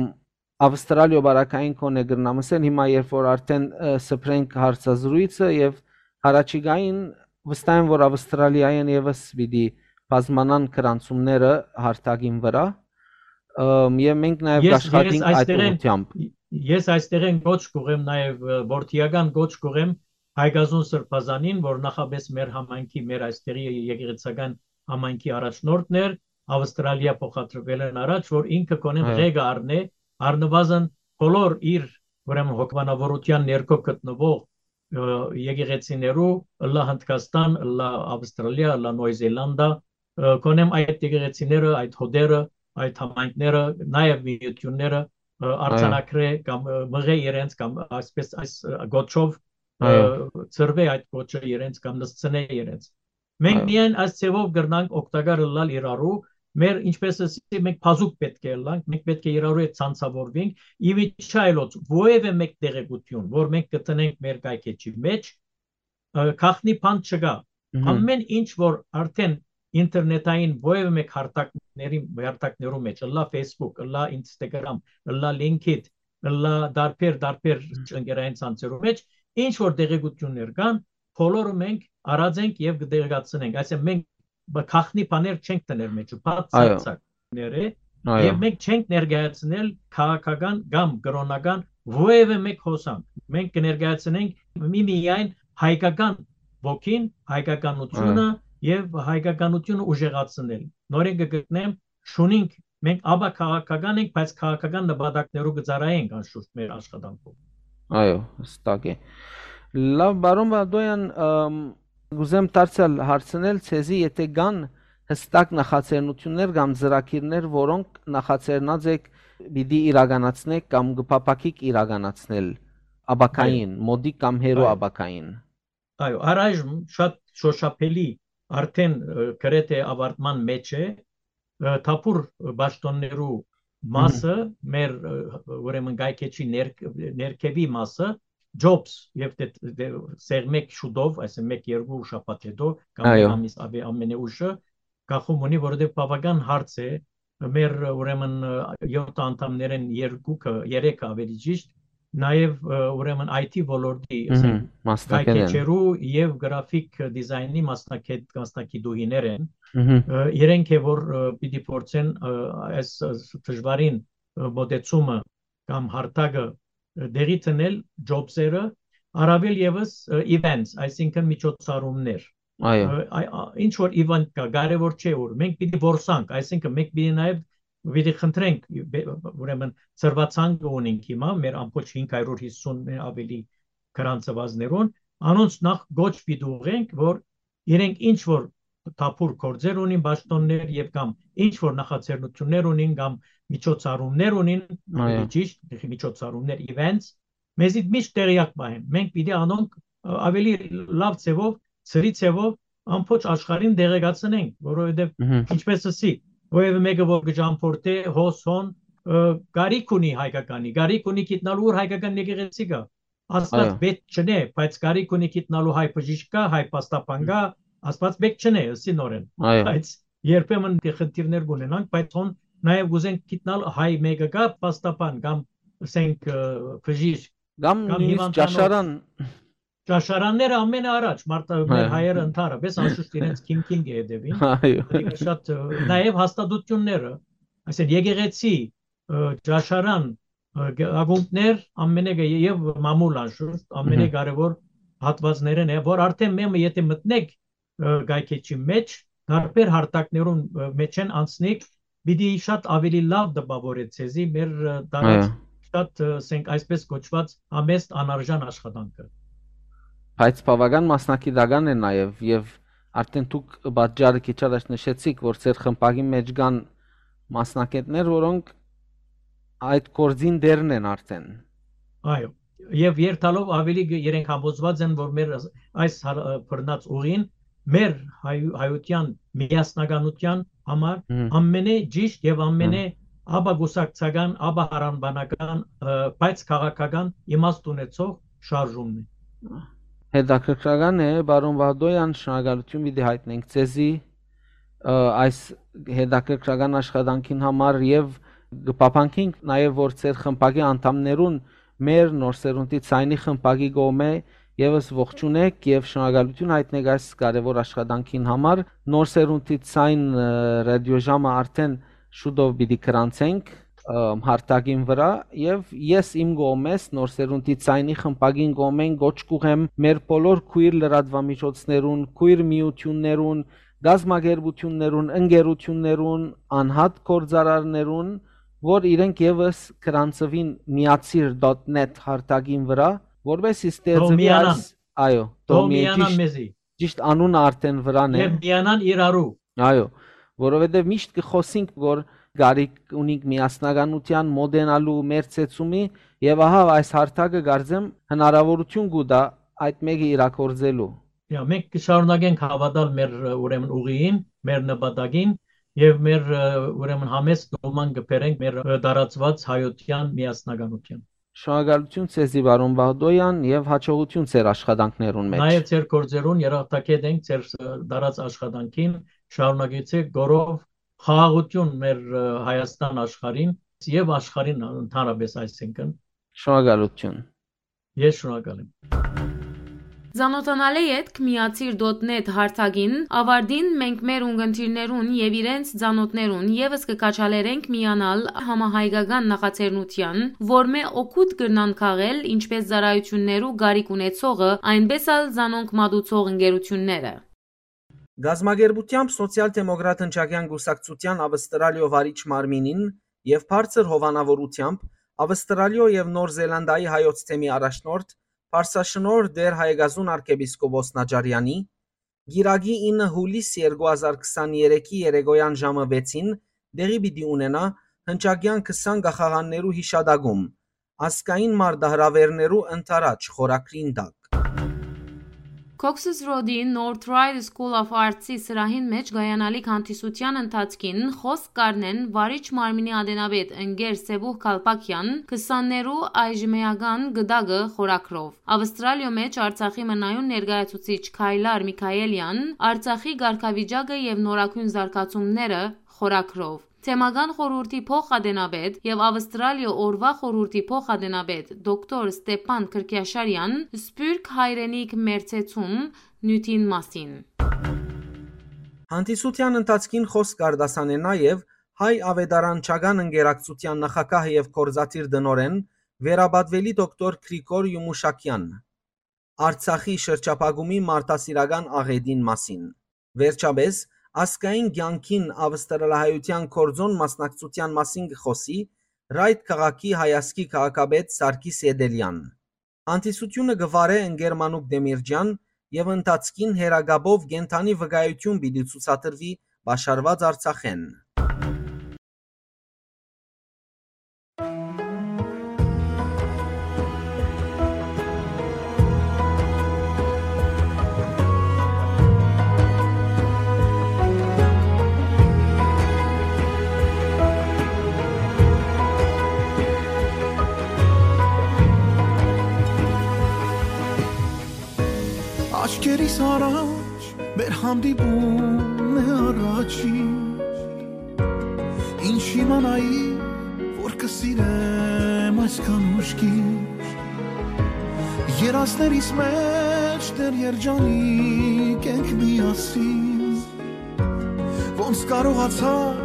Ավստրալիոյ բարակային կոնե կրնամ ասել, հիմա երբ որ արդեն, ը, սփռենք հարցազրույցը եւ առաջիկային վստահ եմ, որ Ավստրալիայեն եւս պիտի բազմանան գրանցումները հարթակին վրա, ըմ, եւ մենք նաեւ Ես, ես կաշխատենք այդ այստեղեն, ուղղությամբ։ ես այստեղեն գոչ կուղեմ նաեւ, ը, որդիական գոչ կուղեմ Հայկազուն Սրբազանին, որ նախապես մեր համայնքի, մեր այստեղի եկեղեցական համայնքի առաջնորդն էր, Ավստրալիա փոխադրվել են առաջ, որ ինքը կոնեն Հա։ ղեկը առնէ, առնվազն բոլոր իր, ուրեմն, հոգեբանավորության ներքո գտնվող, ը, եկեղեցիներու, ըլլա Հնդկաստան, ըլլա Ավստրալիա, ըլլա Նոյ Զելանդա, ը, կոնեմ այդ եկեղեցիները, այդ հոտերը, այդ համայնքները, նաեւ միությունները, ը, Այո։ արձանագրե կամ, ը, մղե իրենց կամ այսպես այս, ը, գոչով, ը, Այո։ ծրվե այդ գոչը իրենց կամ նսցնե իրենց։ Մենք Այո։ միայն այս ձևով կրնանք օգտակար ըլլալ իրարու, մեր, ինչպես ասի, մենք բազուկ պետք է ըլլանք, մենք պետք է իրարու հետ ցանցավորվենք, ի միջի այլոց որևէ մեկ տեղեկություն, որ մենք կտնենք մեր կայքէջի մեջ, ը, գաղտնի բան չկա։ Մհմ։ Ամեն ինչ, որ արդեն ինտերնետային որևէ մեկ հարթակների, հարթակներու մեջ, ըլլա Facebook, ըլլա Instagram, ըլլա LinkedIn, ըլլա դարբեր, դարբեր ընկերային ցանցերու մեջ, ինչ որ տեղեկություններ կան, բոլորը մենք առած ենք եւ կը տեղեկացնենք։ Այսինքն մենք բ-, գաղտնի բաներ չենք դնել մեջը, բաց Այո։ ցակ-ցակ ները, Այո։ Եւ մենք չենք ներկայացնել քաղաքական կամ կրօնական որևէ մեկ հոսանք։ Մենք կներկայացնենք մի-, միայն հայկական ոգին, հայկականությունը Այո։ Եւ հայկականությունը ուժեղացնել։ Նորեն կը գտնեմ, շունինք, մենք աբա քաղաքական ենք, բայց քաղաքական նպատակներով կը ծառայենք անշուշտ մեր աշխատանքով։ Այո, հստակ է։ Լավ, պարոն Վադոյան, ըմ, կուզեմ դարձյալ հարցնել ձեզի, եթե կան հստակ նախաձեռնություններ կամ ծրագիրներ, որոնք նախաձեռնած եք, պիտի իրականացնեք կամ կը փափաքիք իրականացնել ապագային, Այո։ մոտիկ կամ հեռու Այո։ Ապագային։ Այո, առայժմ շատ շոշափելի, արդեն, ը, գրեթե ավարտման մեջ է, ը, թափուր պաշտոններու Մհմ։ մասը, մեր, ը, ուրեմն կայքէջի ներ-, ներքևի մասը, Jobs, եւ դե, դե, սեղմեք շուտով, այսինքն մեկ-երկու շաբաթ հետո, կամ Այո։ Ամիս, ավե-, ամենեուշը, կախում ունի, որովհետեւ բավական հարց է, մեր, ուրեմն, ը, յոթ անդամներէն երկուքը, երեքը ավելի ճիշտ, նաեւ, ը, ուրեմն I T ոլորտի, Մհմ, ասենք, մասնակետ են։ Կայքէջերու եւ գրաֆիկ դիզայնի մասնակետ-, մասնակիտուհիներ են։ Մհմ։ Ը, իրենք է, որ, ը, պիտի փորձեն, ը, այս, ը, դժվարին, ը, մոտեցումը կամ հարթակը, ը, տեղի դնել Jobs-երը, առավել եւս, ը, events, այսինքն միջոցառումներ։ Այո։ Ը, այ-, ա-, ինչ որ event կա, կարեւոր չէ ուր, մենք պիտի որսանք, այսինքն մենք պիտի նաեւ պիտի խնդրենք, բե-, ուրեմն ծրվածանքը ունենք հիմա, մեր ամբողջ հինգ հարյուր հիսուն ավելի գրանցվածներուն, անոնց նախ գոչ պիտի ուղենք, որ իրենք ինչ որ թափուր գործեր ունին, պաշտոններ եւ կամ ինչ որ նախաձեռնություններ ունին կամ միջոցառումներ ունին, Այո։ ավելի ճիշտ, միջոցառումներ, events, մեզի միշտ տեղյակ պահեն։ Մենք պիտի անոնք, ը, ավելի լավ ձեւով, ծրի ձեւով ամբողջ աշխարհին տեղեկացնենք, որովհետեւ Մհմ։ ինչպես ասի, որևէ մեկը որ կճամփորդէ հոս հոն, ը, կարիք ունի հայկականի, կարիք ունի գիտնալու ուր հայկական եկեղեցի կա։ Աստված Այո։ պետք չնե, բայց կարիք ունի գիտնալու հայ բժիշկ կա, հայ պաստապան կա, Աստված պետք չնե, ըսի նորեն։ Այո։ Բայց երբեմն դե խնդիրներ կունենանք, բայց հոն նաեւ կուզենք գիտնալ հայ մեկը կա, պաստապան կամ, ասենք, ը, բժիշկ, Կամ կամ նույնիսկ հիվանդանոց։ Ճաշարան։ Ճաշարանները ամենաառաջ, մարդը, մեր Հա։ հայերը ընդհանրապես անշուշտ իրենց քինքին կը հետևին։ Այո։ Ատիկա շատ, ը, նաեւ հաստատությունները, այսինքն եկեղեցի, ը, ճաշարան, ը, գ-, ակումբներ, ամենը գ-, եւ մամուլ անշուշտ, ամենը Մհմ։ կարեւոր հատվածներն է, որ արդեն մեմը եթե մտնեք, ը, կայքէջի մեջ, տարբեր հարթակներուն, ը, մեջ են անցնիք, պիտի շատ ավելի լավ տպաւորէ ձեզի մեր, ը, տարած Այո։ շատ, ը, ասենք այսպես կոչված համեստ անարժան աշխատանքը։ Բայց բավական մասնակիտական է նաեւ, եւ արդեն դուք պատճառը քիչ առաջ նշեցիք, որ ձեր խմբակի մեջ կան մասնակիցներ, որոնք այդ գործին դերն են արդեն։ Այո, եւ երթալով ավելի գ-, իրենք համոզված են, որ մեր այս, այս հար-, ը, բռնած ուղին մեր հայ-, հայության միասնականության համար Մհմ։ ամենէ ճիշտ եւ ամենէ Մհմ։ ապագուսակցական, ապահարանբանական, ը, բայց քաղաքական իմաստ ունեցող շարժումն է։ Հետաքրքրական է, պարոն Վահդոյան, շնորհակալություն պիտի հայտնենք ձեզի, ը, այս հետաքրքրական աշխատանքին համար եւ կփափանքենք նաեւ, որ ձեր խմբակի անդամներուն մեր Նոր Սերունդի Ցայնի խմբակի կողմէ եւս ողջունեք եւ շնորհակալություն հայտնեք այս կարեւոր աշխատանքին համար։ Նոր Սերունդի Ցայն, ը, ռադիոժամը արդեն շուտով պիտի գրանցենք, ը, հարթակին վրա, եւ ես իմ կողմէս Նոր Սերունդի Ցայնի խմբակին կողմէն կոչ կուղեմ մեր բոլոր քույր լրատվամիջոցներուն, քույր միություններուն, կազմակերպություններուն, ընկերություններուն, անհատ գործարարներուն, որ իրենք եւս գրանցուին միացիր դոթ նեթ հարթակին վրա, որպեսզի Թող ստեղծվի միանան։ այս, այո, թող թող միանան միեցիշ-, մեզի։ ճիշտ անունը արդեն վրան է։ Եւ միանան իրարու։ Այո, որովհետեւ միշտ կխոսենք, որ կարիք ունենք միասնականության, մոտենալու, մեր ցեցումի, եւ ահա այս հարթակը, կարծեմ, հնարավորություն կու տա այդ մեկը իրագործելու։ Եա, մենք կշարունակենք հավատալ մեր, ը, ուրեմն ուղիին, մեր նպատակին եւ մեր, ը, ուրեմն համեստ նոման կբերենք մեր, ը, տարածված հայության միասնականության։ Շնորհակալություն ձեզի, պարոն Վահդոյան, եւ հաջողություն ձեր աշխատանքներուն մեջ։ Նաեւ ձեր գործերուն երախտագետ ենք, ձեր, ը, տարած աշխատանքին, շարունակեցեք գորով խաղաղություն մեր, ը, Հայաստան աշխարհին եւ աշխարհին ընդհանրապես, այսինքն։ Շնորհակալություն։ Ես շնորհակալ եմ։ Ծանօթանալէ ետք միացիր դոթ նեթ հարթակին, աւարտին մենք մեր ունգընտիրներուն եւ իրենց ծանօթներուն եւս կը քաջալերենք միանալ համահայկական նախաձեռնութեան, որմէ օգուտ կրնան քաղել ինչպէս ծառայութիւններու կարիք ունեցողը, այնպէս ալ զանոնք մատուցող ընկերութիւնները։ Կազմակերպութեամբ Սոցիալ-դեմոկրատ հնչակեան կուսակցութեան Ավստրալիոյ վարիչ մարմինին եւ բարձր հովանաւորութեամբ Ավստրալիոյ եւ Նոր Զելանդիայի հայոց թեմի առաջնորդ, Պարսաշնորհ Տէր Հայեգազուն արքեպիսկոպոս Նաճարեանի, կիրակի ինը յուլիս երկու հազար քսաներեքի երեկոյան ժամը վեցին տեղի պիտի ունենայ հնչակեան քսան կախաղաններու յիշատակում, ազգային մարտահրաւէրներու ընդառաջ խորագրին տակ։ Cox's Road-ի North Ryde School of Arts-ի սրահին մէջ կայանալիք հանդիսութեան ընթացքին խօսք կ'առնեն վարիչ մարմինի ատենապետ ընկեր Սեբուհ Քալպակեան քսաններու այժմէական գտակը խորագրով։ Ավստրալիոյ մէջ Արցախի մնայուն ներկայացուցիչ Քայլար Միքայելեան Արցախի կարգավիճակը եւ նորագոյն զարգացումները խորագրով։ Թեմական խորհուրդի փոխ-ատենապետ եւ Ավստրալիոյ օրուայ խորհուրդի փոխ-ատենապետ դոկտոր Ստեփան Քրքիաշարեան Սփիւռք հայրենիք մերձեցում նիւթին մասին։ Հանդիսութեան ընթացքին խօսք կ'արտասանէ նաեւ Հայ աւետարանչական ընկերակցութեան նախագահ եւ գործադիր տնօրէն, վերապատուելի դոկտոր Գրիգոր Յումուշակեան, Արցախի շրջափակումի մարդասիրական աղէտին մասին։ Վերջապէս, ազգային կեանքին ավստրալահայութեան գործօն մասնակցութեան մասին կը խօսի Ռայթ քաղաքի հայազգի քաղաքապետ Սարգիս Էտելեան։ Հանդիսութիւնը կը վարէ ընկեր Մանուկ Դեմիրճեան եւ ընթացքին հեռակապով կենդանի վկայութիւն պիտի ցուցադրուի Պաշարուած Արցախէն։ Աչքերիս առաջ մեր հանդիպումն է առաջին։ Ինչ իմանայի, որ կը սիրեմ այսքան ուշքին։ Երազներիս մէջ դեռ երջանիկ ենք միասին։ Ոնց կարողացար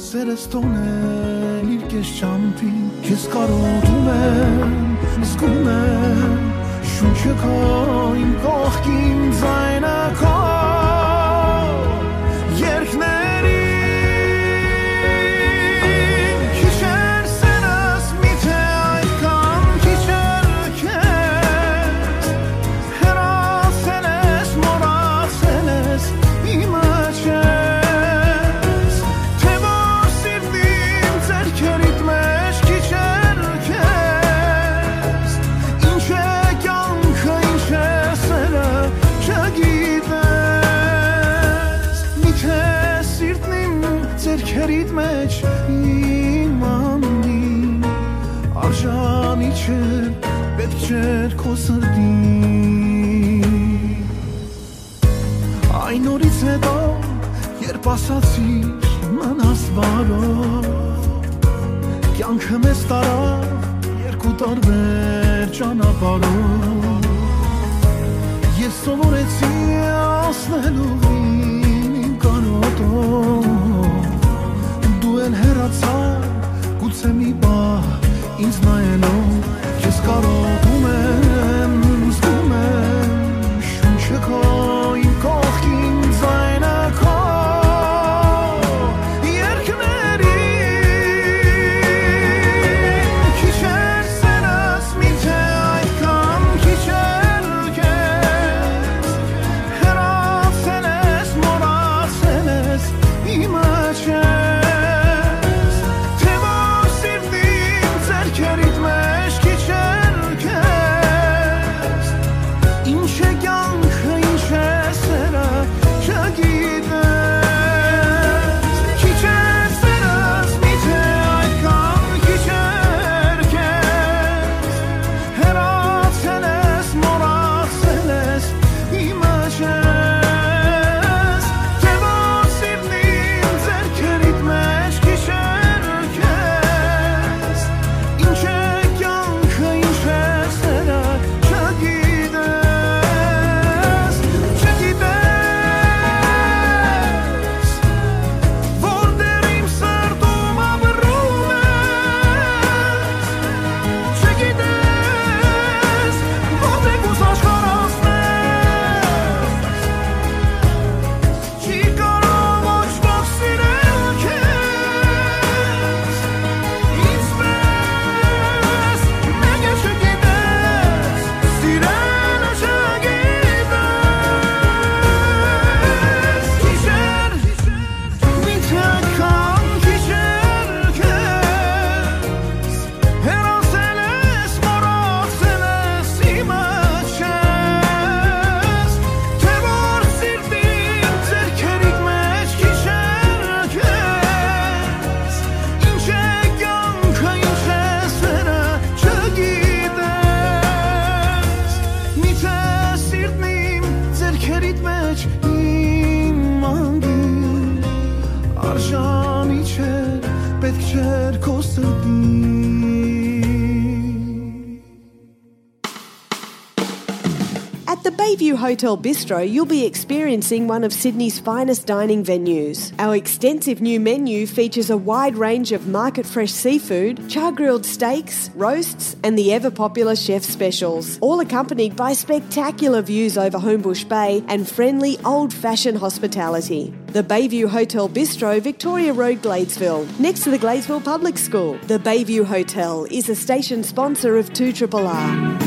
սերս թողնել իր կես ճամփին։ Քեզ կարոտում եմ, զգում եմ շունչը քո իմ կողքին, ձայնը քո երկներին։ Քիչ էր սերս, միթե այդքան քիչ էր քեզ, հեռացել ես, մոռացել ես, իմը չես, թե որ սիրտ իմ ձեռքերիդ մէջ քիչ էր քեզ, ինչ է կյանքը, ինչ է սերը, չգիտես, միթե սիրտն իմ ձեռքերիդ մէջ իմաննի, արժանի չէր, պետք չէր քո սրտին։ Այն օրից հետո, երբ ասացիր մնաս բարով, կյանքը մեզ տարավ երկու տարբեր ճանապարհով։ Ես սովորեցի անցնել ուղին իմ կարոտով, դու էլ հեռացար, գուցե մի պահ ինձ նայելով, քեզ կարոտում եմ, զգում եմ շունչը քո իմ կողքին, ձայնը քո երկներին, քիչ էր սերս, միթե այդքան քիչ էր քեզ, հեռացել ես, մոռացել ես, իմը չես, թե որ սիրտ իմ ձեռքերիդ մէջ քիչ էր քեզ, The Bayview Hotel Bistro, you'll be experiencing one of Sydney's finest dining venues. Our extensive new menu features a wide range of market fresh seafood, char grilled steaks, roasts, and the ever popular chef specials, all accompanied by spectacular views over Homebush Bay and friendly old fashioned hospitality. The Bayview Hotel Bistro, Victoria Road, Gladesville, next to the Gladesville Public School. The Bayview Hotel is a station sponsor of two triple R.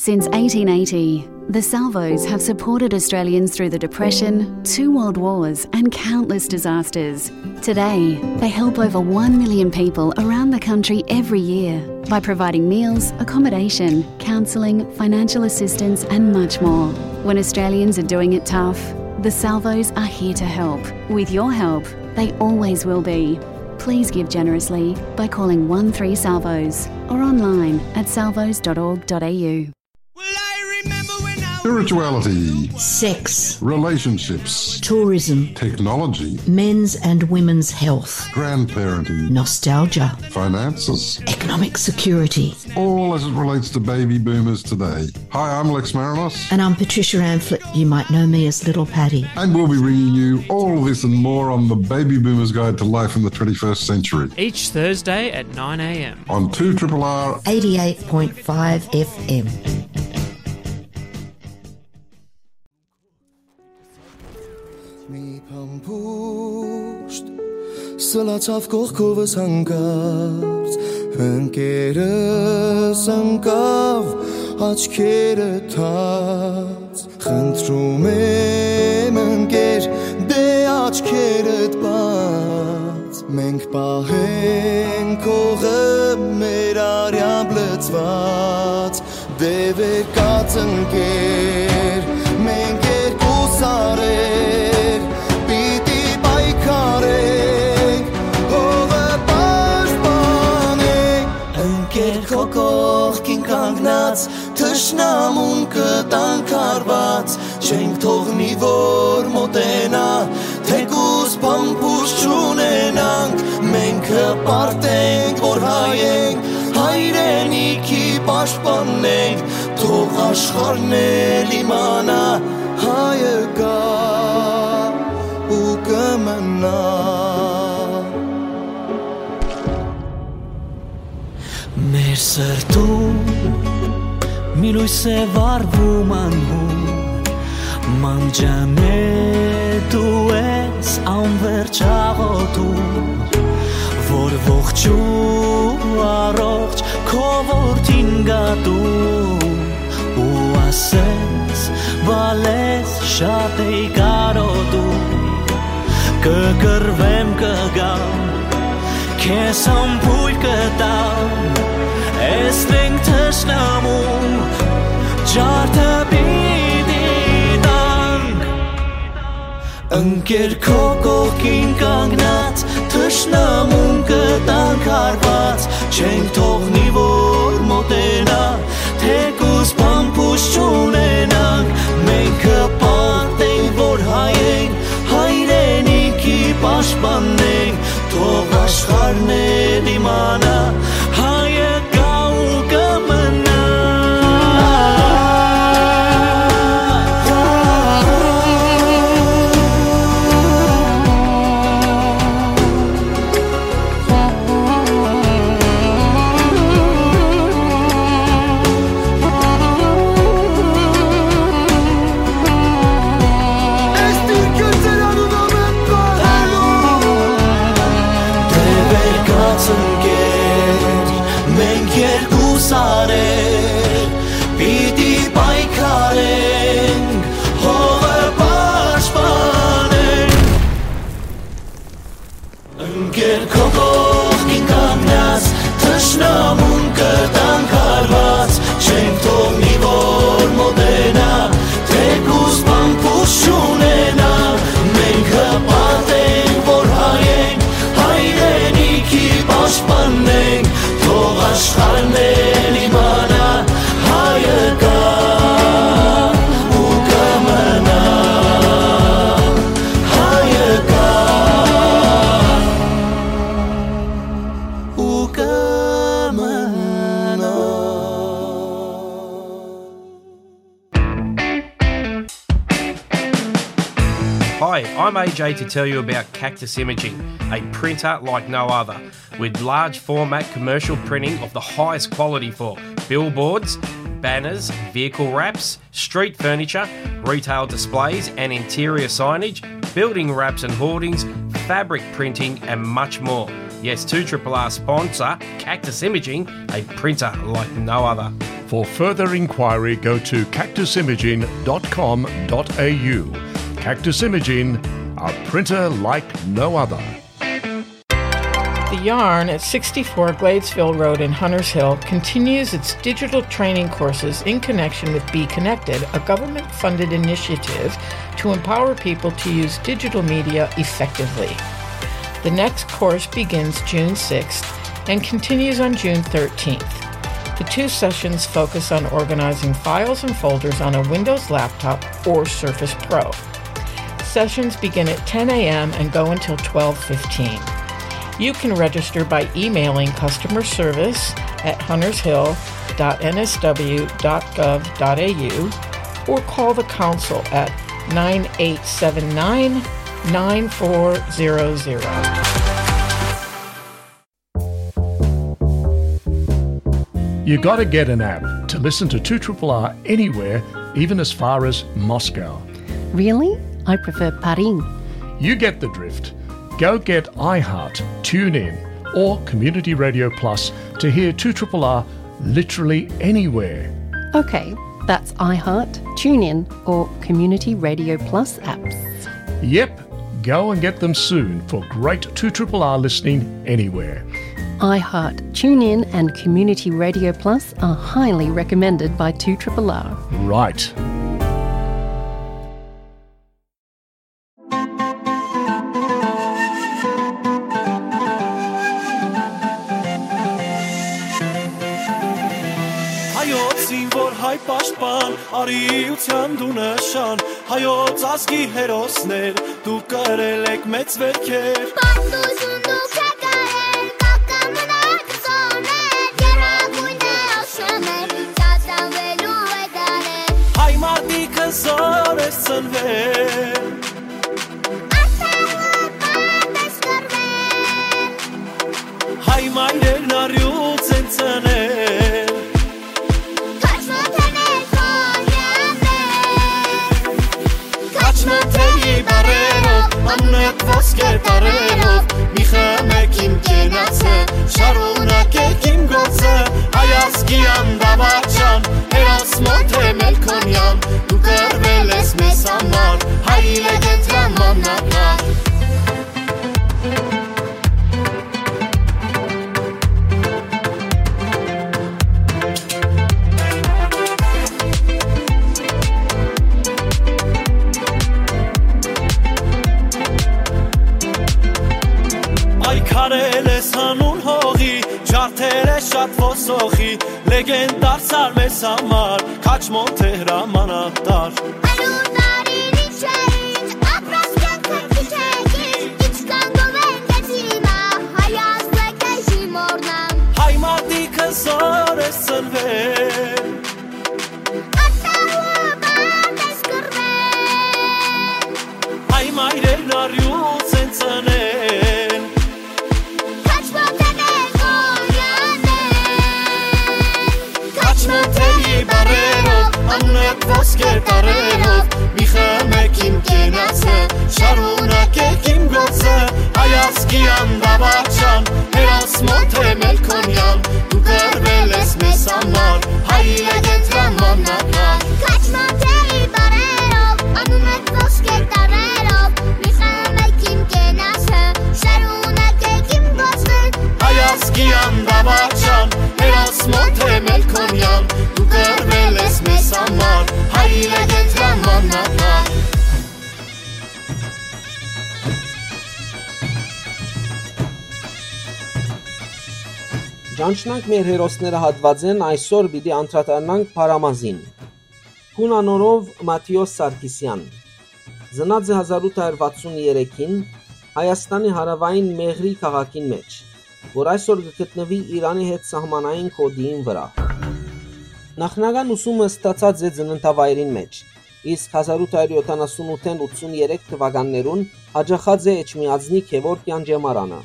Since eighteen eighty, the Salvos have supported Australians through the Depression, two world wars, and countless disasters. Today, they help over one million people around the country every year by providing meals, accommodation, counselling, financial assistance, and much more. When Australians are doing it tough, the Salvos are here to help. With your help, they always will be. Please give generously by calling one three Salvos or online at salvos dot org dot a u. Spirituality, sex, relationships, tourism, technology, men's and women's health, grandparenting, nostalgia, finances, economic security, all as it relates to baby boomers today. Hi, I'm Lex Marinos. And I'm Patricia Amphlett. You might know me as Little Patty. And we'll be bringing you all this and more on the Baby Boomers Guide to Life in the twenty-first Century. Each Thursday at nine a m. On two triple R eighty-eight point five F M. Մի փամփուշտ սլացավ կողքովս հանկարծ, ընկերս ընկավ աչքերը թած։ Խնդրում եմ, ընկեր, դե աչքերդ բաց, մենք պահենք հողը մեր արյամբ լցված։ Դե վեր կաց, ընկեր, մենք երկու սարեր պիտի պայքարենք, հողը պաշտպանենք։ Ընկեր, քո կողքին կանգնած, թշնամուն կտանք հարված, չենք թողնի, որ մոտենայ, թեկուզ փամփուշտ չունենանք, մենք հպարտ ենք, որ հայ ենք, հայրենիքի պաշտպանն ենք, թող աշխարհն էլ իմանայ, հայը կայ ու կը մնայ։ Մեր սրտում մի լոյս է վառվում անհուն, մանկջանե դու ես անվերջ աղոթում, որ ողջ ու առողջ քո որդին գատում, ու ասես, բալես շատ էի կարոտում, կը կռվեմ, կը գամ, քեզ համբույր կը տամ, էս մենք թշնամու ջարդը պիտի տանք։ Ընկեր, քո կողքին կանգնած, թշնամուն կտանք հարված, չենք թողնի, որ մոտենայ, թեկուզ փամփուշտ չունենանք, մենք հպարտ ենք, որ հայ ենք, հայրենիքի պաշտպանն ենք, թող աշխարհն էլ իմանայ, հայը կայ ու կը մնայ։ Ես դիրքը ծերանունով եմ պահելու։ Դե վեր կաց, ընկեր, մենք երկու սարեր պիտի պայքարենք, հողը պաշտպանենք։ Ընկեր, քո կողքին կանգնած, թշնամուն կտանք հարված, չենք թողնի, որ մոտենայ, թեկուզ փամփուշտ չունենայ, մենք հպարտ ենք, որ հայ ենք, հայրենիքի պաշտպանն ենք, թող աշխարհն էլ իմանայ, հայը կայ ու կը մնայ, հայը կայ ու կը մնայ։ I'm A J to tell you about Cactus Imaging, a printer like no other, with large format commercial printing of the highest quality for billboards, banners, vehicle wraps, street furniture, retail displays and interior signage, building wraps and hoardings, fabric printing, and much more. Yes, two triple R sponsor Cactus Imaging, a printer like no other. For further inquiry, go to cactus imaging dot com dot a u. Cactus Imaging, a printer like no other. The Yarn at sixty-four Gladesville Road in Hunters Hill continues its digital training courses in connection with Be Connected, a government-funded initiative to empower people to use digital media effectively. The next course begins June sixth and continues on June thirteenth. The two sessions focus on organizing files and folders on a Windows laptop or Surface Pro. Sessions begin at ten a m and go until twelve fifteen. You can register by emailing customer service at huntershill dot n s w dot gov dot a u or call the council at nine eight seven nine, nine four zero zero. You gotta get an app to listen to two triple R anywhere, even as far as Moscow. Really? I prefer Paris. You get the drift. Go get iHeart, TuneIn, or Community Radio Plus to hear two triple R literally anywhere. Okay, that's iHeart, TuneIn, or Community Radio Plus apps. Yep, go and get them soon for great two triple R listening anywhere. iHeart, TuneIn, and Community Radio Plus are highly recommended by two triple R. Right. Հայոց զինվոր հայ պաշտպան, արիութեան դու նշան, հայոց ազգի հերոսներ, դուք կրել եք մեծ վերքեր։ Պատմություն դուք եք արել, կակամնակ զոներ, գերագույն է աշոներ, ծածանվելու է դարեր։ Հայ մարդիկ հզոր ես ծնվել, Հայ մայրերն առյուծ են ծնել։ Քաչմոտ են էլ քոնյաներ։ Քաչմոտ էի բարերով, անունդ ոսկե տարերով, մի խմեք իմ կենացը, շարունակեք իմ գործը, հայ ազգի անդավաճան, հերոս մոտ է Մելքոնյան, դու կռվել ես մեզ համար, հայ լեգենդ Ռամանանան։ Այ քարել ես հանուն հողի, ջարդել ես շատ ոսոխի, լեգենդ դարձար մեզ համար, Քաչմոն Թեհրամանատար։ Արուն արին ինչ է ինչ, ապրած կյանքը քիչ է քիչ, ինչքան գովեն կեցի մա, հայ ազգը կեժի մորնան։ Հայ մատիկը զոր ես ծնվել, Ատաուը բարդ ես կռվել։ Հայ մայրերն առյուծ են ծնել։ Քաչմոտ է մեր Խոնյանեն։ Քաչմոտ էի բարերով, անունդ ոսկե տարերով, մի խմեք իմ կենացը, շարունակեք իմ գործը, հայ ազգի անդավաճան, հերոս մոտ է Մելքոնյան, դու կռվել ես մեզ համար, հայ լեգենդ Ռամանանան։ Քաչմոտ էի բարերով, անունդ ոսկե տարերով, մի խմեք իմ կենացը, շարունակեք իմ գործը, հայ ազգի անդավաճան, հերոս մոտ է Մելքոնյան, դու կռվել ես մեզ համար, հայ լեգենդ Ռամանանան։ Ճանչնանք մեր հերոսները հատվածեն, այսօր պիտի անդրադառնանք Փարամազին։ Հունանորով Մաթիոս Սարգիսյան։ Ծնած է հազար ութ հարյուր վաթսուն երեքին Հայաստանի հարաւային Մեղրի քաղաքին մէջ, որ այսօր կը գտնուի Իրանի հետ սահմանային գօտին վրայ։ Նախնական ուսումը ստացած է ծննդավայրին մէջ, իսկ հազար ութ հարիւր յոթանասուն ութ ութսուն երեք թուականներուն յաճախած է Էջմիածնի Գեւորգ Յանճեմարանը։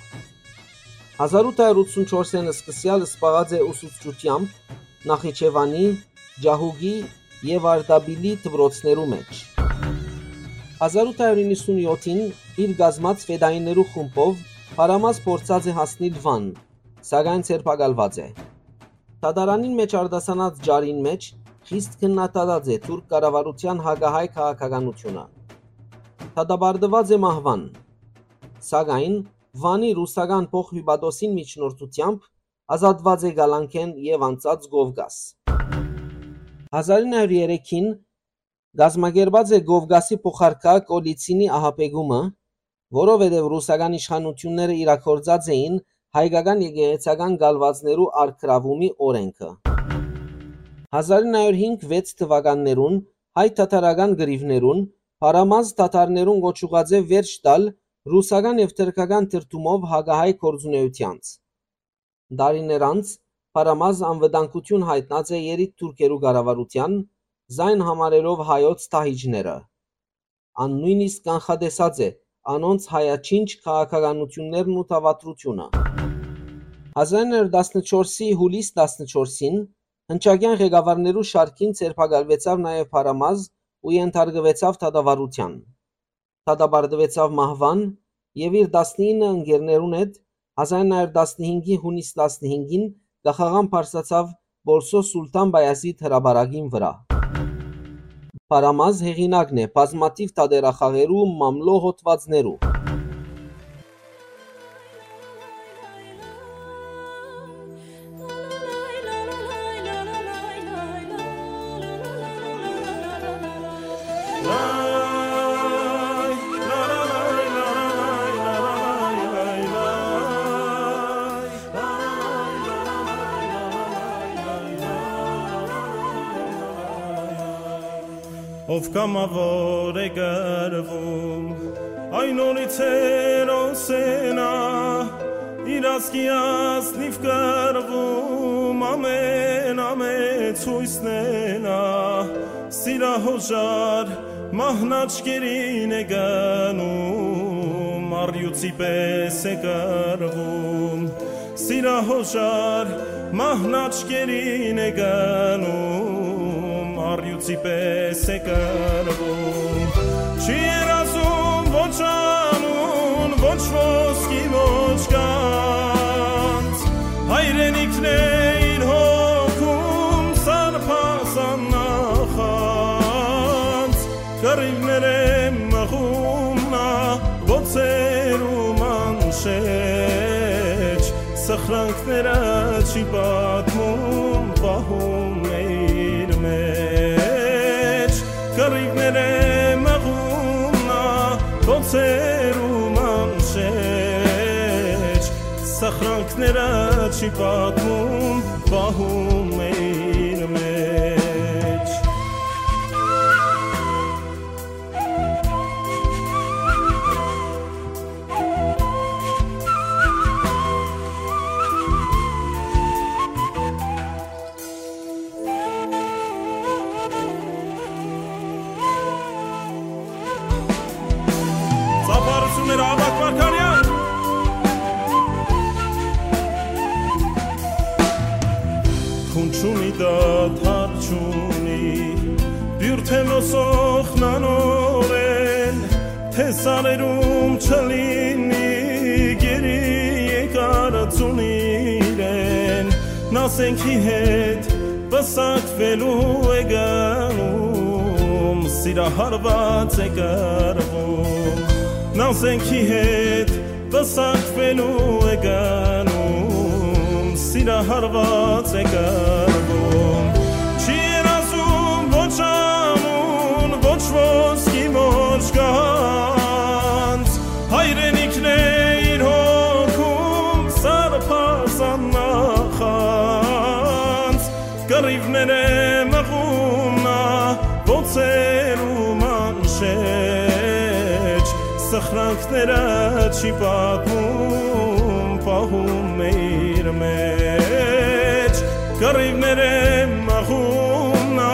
Հազար ութ հարիւր ութսուն չորսէն սկսեալ զբաղած է ուսուցչութեամբ Նախիջեւանի, Ճահուկի եւ Արտապիլի դպրոցներու մէջ։ Հազար ութ հարիւր իննսուն յոթին իր կազմած ֆեդայիներու խումբով Փարամազ փորձած է հասնիլ Վան, սակայն ձերբակալուած է։ Դատարանին մէջ արտասանած ճառին մէջ խիստ քննադատած է թուրք կառավարութեան հակահայ քաղաքականութիւնը։ Դատապարտուած է մահուան, սակայն Վանի ռուսական փոխհիւպատոսին միջնորդութեամբ ազատուած է կալանքէն եւ անցած Կովկաս։ Հազար ինը հարիւր երեքին կազմակերպած է Կովկասի փոխարքայ Կոլիցինի ահաբեկումը, որովհետեւ ռուսական իշխանութիւնները իրագործած էին հայկական եկեղեցական կալուածներու առգրաւումի օրէնքը։ Հազար ինը հարիւր հինգ վեց թուականներուն հայ-թաթարական կռիւներուն Փարամազ թաթարներուն կոչուած է վերջ տալ ռուսական եւ թրքական դրդումով հակահայ գործունէութեանց։ Տարիներ անց Փարամազ անվտանգութիւն յայտնած է երիտթուրքերու կառավարութեան, զայն համարելով հայոց դահիճները։ Ան նոյնիսկ կանխատեսած է անոնց հայաչինչ քաղաքականութիւններն ու դաւադրութիւնը։ Հազար ինը հարիւր տասնչորսի յուլիս տասնչորսին հնչակեան ղեկավարներու շարքին ձերբակալուեցաւ նաեւ Փարամազ ու ենթարկուեցաւ դատավարութեան։ Դատապարտուեցաւ մահուան եւ իր տասնինը ընկերներուն հետ հազար ինը հարիւր տասնհինգի յունիս տասնհինգին կախաղան բարձրացաւ Պոլսոյ Սուլթան Պայազիթ հրապարակին վրայ։ Փարամազ հեղինակն է բազմաթիւ թատերախաղերու մամլոյ հոդուածներու։ Ով կամաւոր է կռվում, այն օրից հերոս է նա, իր ազգի ազնիվ կռվում, ամեն, ամեն ցոյցն է նա, սիրահոժար մահն աչքերին է գնում, առիւծի պէս է կռվում։ Սիրահոժար մահն աչքերին է գնում, առիւծի պէս է կռվում։ Չի երազում ոչ անուն, ոչ ոսկի, ոչ գանձ, հայրենիքն է իր հոգում, սարբազան նախանձ, կռիւներ է մղում նա, բոցերու մանշէջ, սխրանքները չի պատմում, պահում է իր մեջ, կռիւներ է մղում նա, բոցերու մանշէջ, սխրանքները չի պատմում, պահում է իր մեջ։ Ծափարությունները, Աբակ Մարգարեան։ Քուն չունի, դադար չունի, բիւր թէ մոսոխնանորեն, թէ սարերում չլինի գերի եկարածուն իրեն, նա զենքի հետ պսակվելու է գնում, սիրահարված է կռվում, նա զենքի հետ պսակվելու է գնում, սիրահարված է կռվում։ Չի երազում ոչ անուն, ոչ ոսկի, ոչ գանձ, հայրենիքն է իր հոգում, սարբազան նախանձ, կռիւներ է մղում նա, բոցերու մանշէջ, սխրանքները չի պատմում, պահում է իր մեջ, կռիւներ է մղում նա,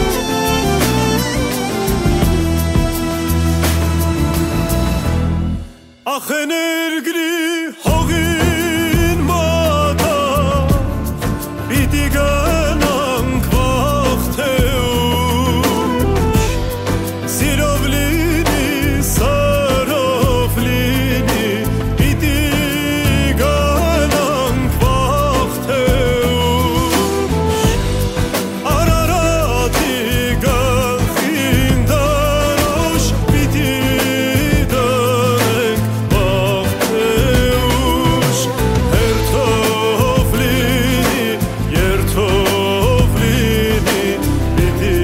Պիտի գնանք վաղ թէ ուշ, սիրով լինի, սրով լինի, պիտի գնանք վաղ թէ ուշ, Արարատի գլխին դրոշ պիտի դնենք, վաղ թէ ուշ, հերթով լինի, երթով լինի, պիտի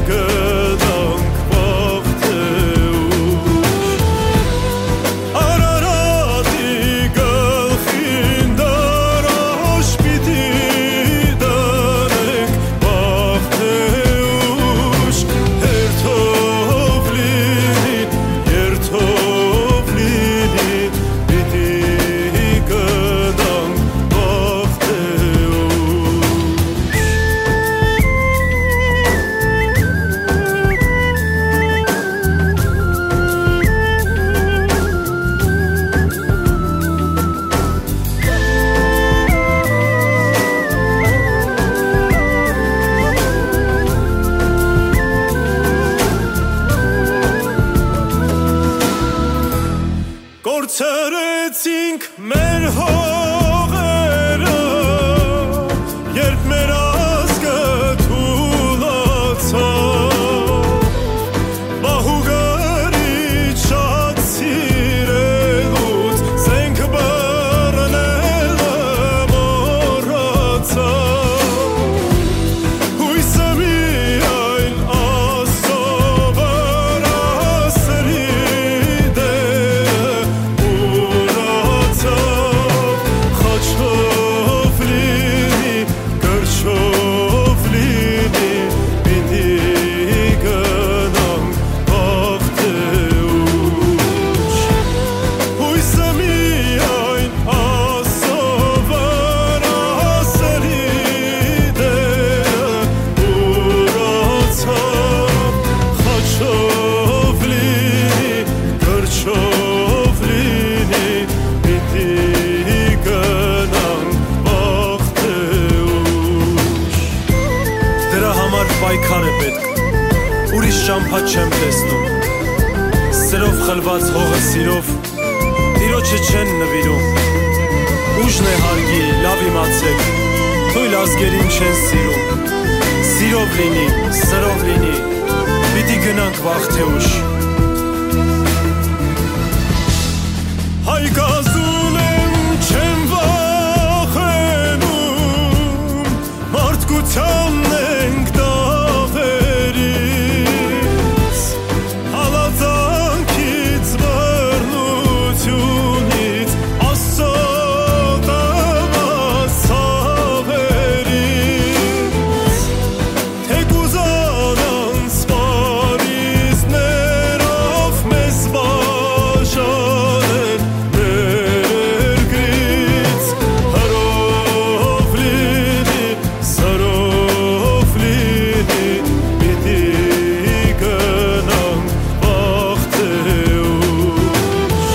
գնանք վաղ թէ ուշ։ Արարատի գլխին դրոշ պիտի դնենք, վաղ թէ ուշ, հերթով լինի, երթով լինի, պիտի գնանք վաղ թէ ուշ։ Կորցրեցինք մեր հողերը, երբ մեր ազգը թուլացաւ, մահու գրիչ շատ սիրելուց զենք բռնելը մոռացաւ։ Յոյսը միայն Աստծո վրայ սրի դերը ուրացաւ, խաչով լինի, կրչով լինի, պիտի գնանք վաղ թէ ուշ։ Յոյսը միայն Աստծո վրայ սրի դերը ուրացաւ, խաչով լինի, կրչով լինի, պիտի գնանք վաղ թէ ուշ։ Դրա համար պայքար է պետք, ուրիշ ճամբայ չեմ տեսնում։ Սրով խլուած հողը սիրով Տիրոջը չեն նուիրում։ Ուժն է հարգի, լաւ իմացէք, թոյլ ազգերին չեն սիրում։ Սիրով լինի, սրով լինի, պիտի գնանք վաղ թէ ուշ։ Հայ կազուն եմ, չեմ վախենում, մարդկությանն ենք դաղերից, հալածանքից, բռնությունից, Աստծո տված ցաւերից։ Թէ կ'ուզանան սպառիզներով մեզ բաժանել մեր երկրից, հրով լինի, սրով լինի, պիտի գնանք վաղ թէ ուշ։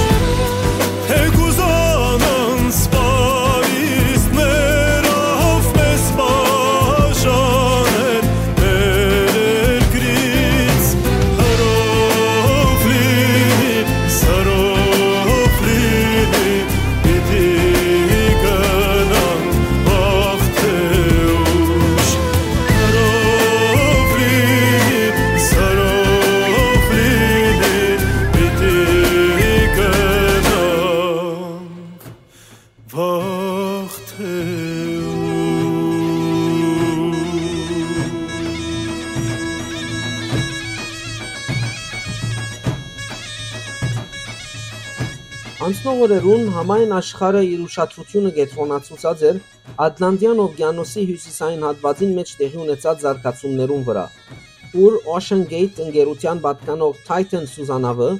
Թէ կ'ուզանան սպառիզներով մեզ բաժանել մեր երկրից, հրով լինի, սրով լինի, պիտի գնանք վաղ թէ ուշ, հրով լինի, սրով լինի, պիտի գնանք վաղ թէ ուշ։ Անցնող օրերուն համայն աշխարհը իր ուշադրութիւնը կեդրոնացուցած էր Ատլանտյան օվկիանոսի հիւսիսային հատուածին մէջ տեղի ունեցած զարգացումներուն վրայ, ուր Ocean Gate ընկերութեան պատկանող Titan սուզանաւը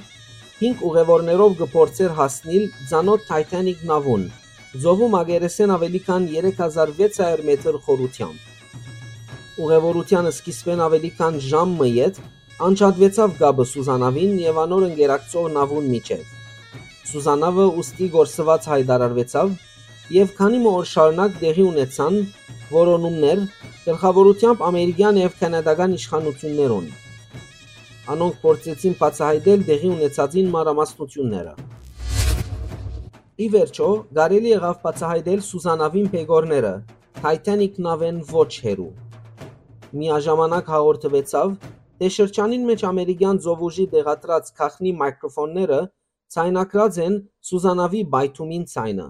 հինգ ուղեւորներով կը փորձէր հասնիլ ծանօթ Titanic նաւուն, ծովու մակերեսէն աւելի քան երեք հազար վեց հարիւր մեթր խորութեամբ։ Ուղեւորութեան սկիզբէն աւելի քան ժամ մը յետ անջատուեցաւ կապը սուզանաւին եւ անոր ընկերակցող նաւուն միջեւ։ Սուզանաւը ուստի կորսուած յայտարարուեցաւ եւ քանի մը օր շարունակ տեղի ունեցան որոնումներ, գլխաւորութեամբ ամերիկեան եւ քանադական իշխանութիւններուն։ Անոնք փորձեցին բացայայտել տեղի ունեցածին մանրամասնութիւնները։ Ի վերջոյ, կարելի եղաւ բացայայտել Սուզանաւին բեկորները Թայթանիք նաւէն ոչ հեռու։ Միաժամանակ հաղորդուեցաւ, թէ շրջանին մէջ ամերիկեան ծովուժի տեղադրած գաղտնի մայքրոֆոնները ձայնագրած են Սուզանաւի պայթումին ձայնը։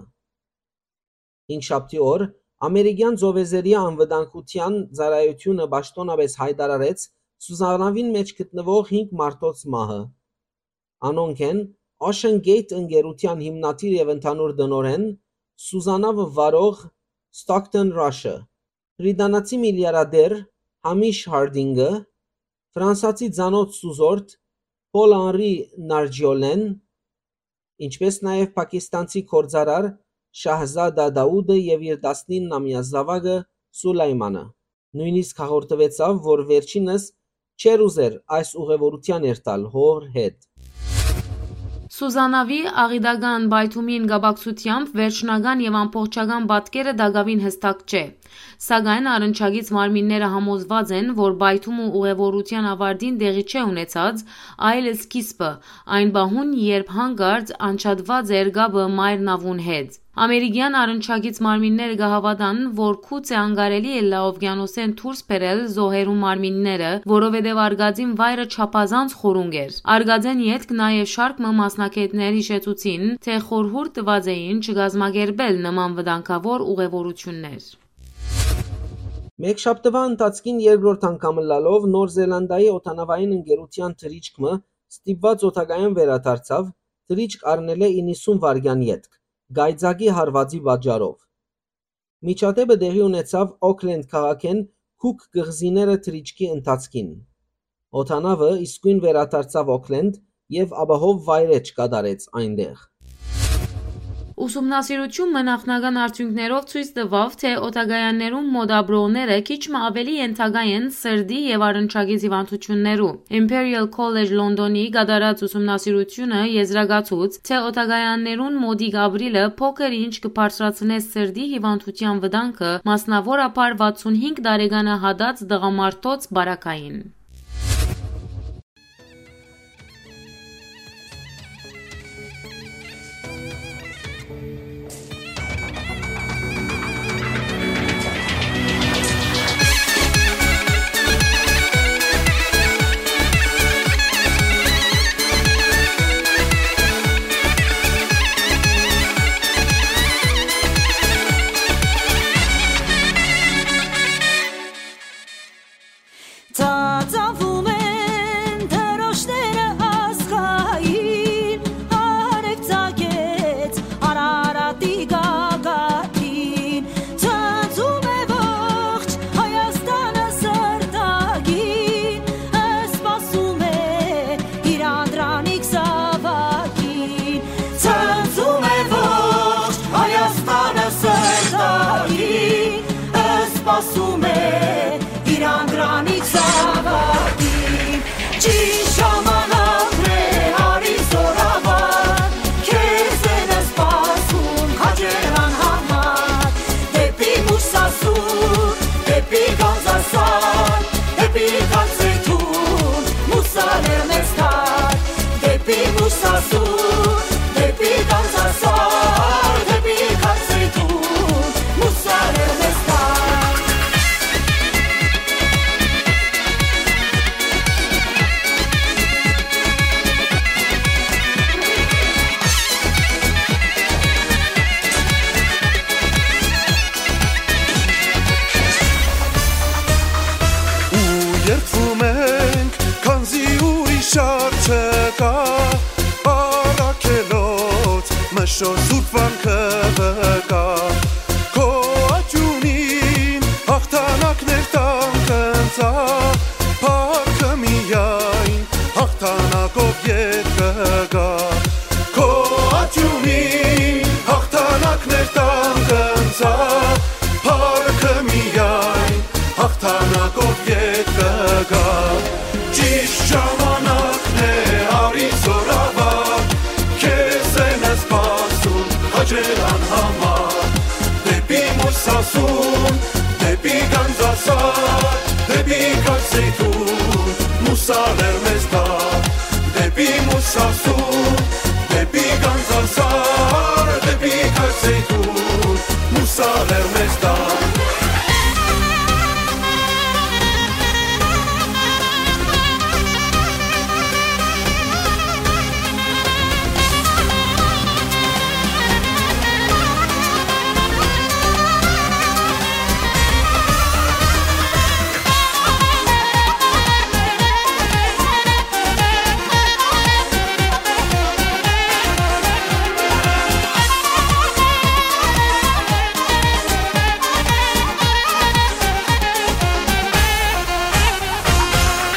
Հինգշաբթի օր ամերիկեան ծովեզերեայ անվտանգութեան ծառայութիւնը պաշտօնապէս յայտարարեց Սուզանաւին մէջ գտնուող հինգ մարդոց մահը։ Անոնք են Ocean Gate ընկերութեան հիմնադիր եւ ընդհանուր տնօրէն, Սուզանավը վարող Stockton Rush-ը, բրիտանացի միլիարդեր Համիշ Հարդինգը, ֆրանսացի ծանօթ սուզորդ Paul Henri Nargiolène, ինչպէս նաեւ պակիստանցի գործարար Շահզադա Դաուդը եւ իր տասնիննամեայ զաւակը Սուլայմանը։ Նոյնիսկ հաղորդուեցաւ, որ վերջինս չէր ուզեր այս ուղեւորութեան երթալ հօր հետ։ Սուզանավի աղիտական պայթումին կապակցութեամբ վերջնական եւ ամբողջական պատկերը տակաւին յստակ չէ, սակայն առնչակից մարմինները համոզուած են, որ պայթումը ուղեւորութեան ավարտին տեղի չէ ունեցած, այլ սկիզբը, այն պահուն, երբ յանկարծ անջատուած էր կապը մայր նաւուն հետ։ Ամերիկեան առնչակից մարմինները կը հաւատան, որ գուցե անկարելի ըլլայ ովկիանոսէն դուրս բերել զոհերու մարմինները, որովհետեւ արկածին վայրը չափազանց խորունկ էր։ Արկածէն ետք նաեւ շարք մը մասնագէտներ յիշեցուցին, թէ խորհուրդ տուած էին չկազմակերպել նման վտանգաւոր ուղեւորութիւններ։ Մէկշաբթուայ ընթացքին երկրորդ անգամ ըլլալով Նոր Զելանդիայի օդանաւային ընկերութեան թռիչք մը ստիպուած օդակայան վերադարձաւ, թռիչք առնելէ իննսուն վայրկեան ետք, կայծակի հարուածի պատճառով։ Միջադէպը տեղի ունեցաւ Օքլենդ քաղաքէն Քուք կղզիները թռիչքի ընթացքին։ Օդանաւը իսկոյն վերադարձաւ Օքլենդ եւ ապահով վայրէջք կատարեց այնտեղ։ Ուսումնասիրութիւն մը նախնական արդիւնքներով ցոյց տուաւ, թէ օդակայաններուն մօտ ապրողները քիչ մը աւելի ենթակայ են սրտի եւ առնչակից հիւանդութիւններու։ Imperial College London-ի կատարած ուսումնասիրութիւնը եզրակացուց, թէ օդակայաններուն մօտիկ ապրիլը փոքր ինչ կը բարձրացնէ սրտի հիւանդութեան վտանգը, մասնաւորաբար վաթսուն հինգ տարեկանը յատած տղամարդոց պարագային։ Ծածանվում են դրոշները ազգային, արեւ ծագեց Արարատի գագաթին, ծածում է ողջ Հայաստանը սրտագին, սպասում է իր անդրանիկ զաւակին, ծածում է ողջ Հայաստանը սրտագին, սպասում է իր անդրանիկ զաւակին, ճիշտ ժամանակն է, արի զօրավար, քեզ են սպասում քաջերան համար, դեպի Մուսասուր, դեպի Գանձասար, դեպի Գանձեթուն, Մուսալեր մեզ թար, դեպի Մուսասուր, դեպի Գանձասար, դեպի Գանձեթուն, Մուսալեր մեզ թար։ Ու երդվում ենք, քանզի ուրիշ առ չկա, առաքելոց մշո սուրբ վանքը վկայ, քո աճունին հաղթանակներ տան կընծայ, փառքը միայն հաղթանակով ետ կգա։ Քո աճունին հաղթանակներ տան կընծայ, փառքը միայն հաղթանակով ետ կգա։ Ճիշտ ժամանակն է, արի զօրավար, քեզ են սպասում քաջերան համար, դեպի Մուսասուն, դեպի Մուսալեր մեզ տան, դեպի Մուսասուն, դեպի Գանձասար, դեպի Քարսեյթուն, մուսալեր մեզ տան։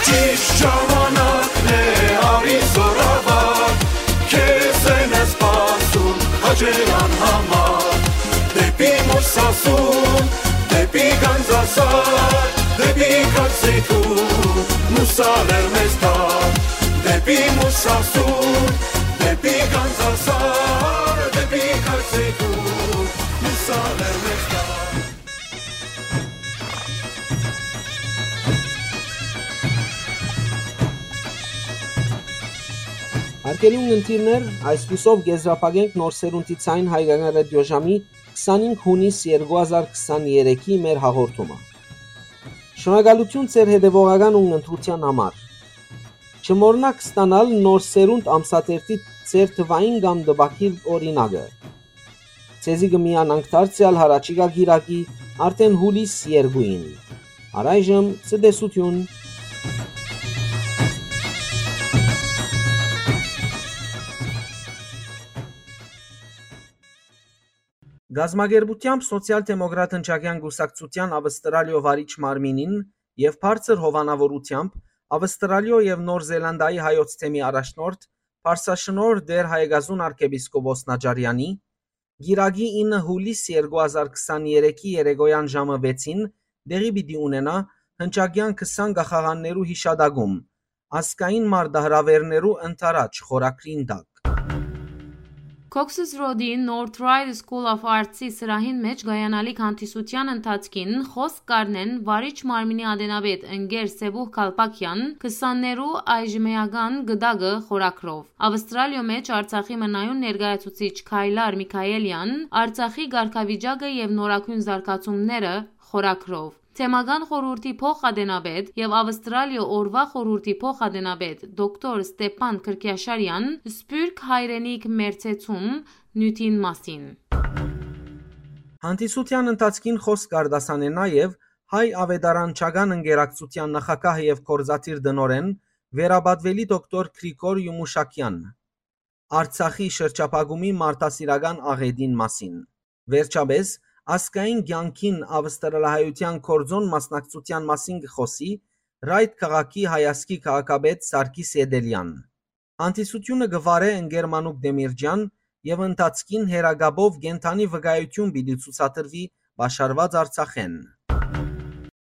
Ճիշդ ժամանակն է, արի զօրավար, քեզ են սպասում հաճելան համար։ Դեպի Մուսասուն, դեպի Գանձասար, դեպի Քարսեյթուն, մուսալեր մեզ տան, դեպի Մուսասուն, դեպի Գանձասար, դեպի Քարսեյթուն, մուսալեր մեզ տան։ Արգելուն ընտիրներ, այսպիսով կեզրափակենք Նոր Սերունդի Ձայն հայկական ռադիոժամի քսանինգ յունիս երկու հազար քսաներեքի մեր հաղորդումը։ Շնորհակալություն ձեր հետևողական ու ընտրության համար։ Չմոռնաք ստանալ Նոր Սերունդ ամսաթերթի ձեր թվային կամ տպագիր օրինակը։ Ձեզի կը միանանք դարձեալ յառաջիկայ կիրակի, արդէն յուլիս երկուին։ Առայժմ ցտեսութիւն։ Կազմակերպութեամբ Սոցիալ-դեմոկրատ հնչակեան կուսակցութեան Ավստրալիոյ վարիչ մարմինին եւ բարձր հովանաւորութեամբ Ավստրալիոյ եւ Նոր Զելանդիայի հայոց թեմի առաջնորդ Պարսաշնորհ Տէր Հայեկազուն արքեպիսկոպոս Նաճարեանի, կիրակի ինը յուլիս երկու հազար քսաներեքի երեկոյան ժամը վեցին տեղի պիտի ունենայ հնչակեան քսան կախաղաններու յիշատակում, ազգային մարտահրաւէրներու ընդառաջ խորագրին տակ։ Cox's Road-ի North Ryde School of Arts-ի սրահին մէջ կայանալիք հանդիսութեան ընթացքին խօսք կ'առնեն վարիչ մարմինի ատենապետ ընկեր Սեւուհ Քալպակեան, քսաններու այժմեական գդակը խորագրով։ Ավստրալիոյ մէջ Արցախի մնայուն ներկայացուցիչ Քայլար Միքայելեան, Արցախի կարգավիճակը եւ նորագոյն զարգացումները խորագրով։ Թեմական խորհուրդի փոխ-ատենապետ եւ Ավստրալիոյ օրուայ խորհուրդի փոխ-ատենապետ դոկտոր Ստեփան Քրքիաշարեան Սփիւռք հայրենիք մերձեցում նիւթին մասին։ Հանդիսութեան ընթացքին խօսք կ'արտասանէ նաեւ Հայ աւետարանչական ընկերակցութեան նախագահ եւ գործադիր տնօրէն վերապատուելի դոկտոր Գրիգոր Յումուշակեան, Արցախի շրջափակումի մարդասիրական աղէտին մասին։ Վերջապէս, ազգային կեանքին ավստրալահայութեան գործօն մասնակցութեան մասին կը խօսի Ռայթ քաղաքի հայազգի քաղաքապետ Սարգիս Էտելեան։ Հանդիսութիւնը կը վարէ ընկեր Մանուկ Դեմիրճեան եւ ընթացքին հեռակապով կենդանի վկայութիւն պիտի ցուցադրուի պաշարուած Արցախէն։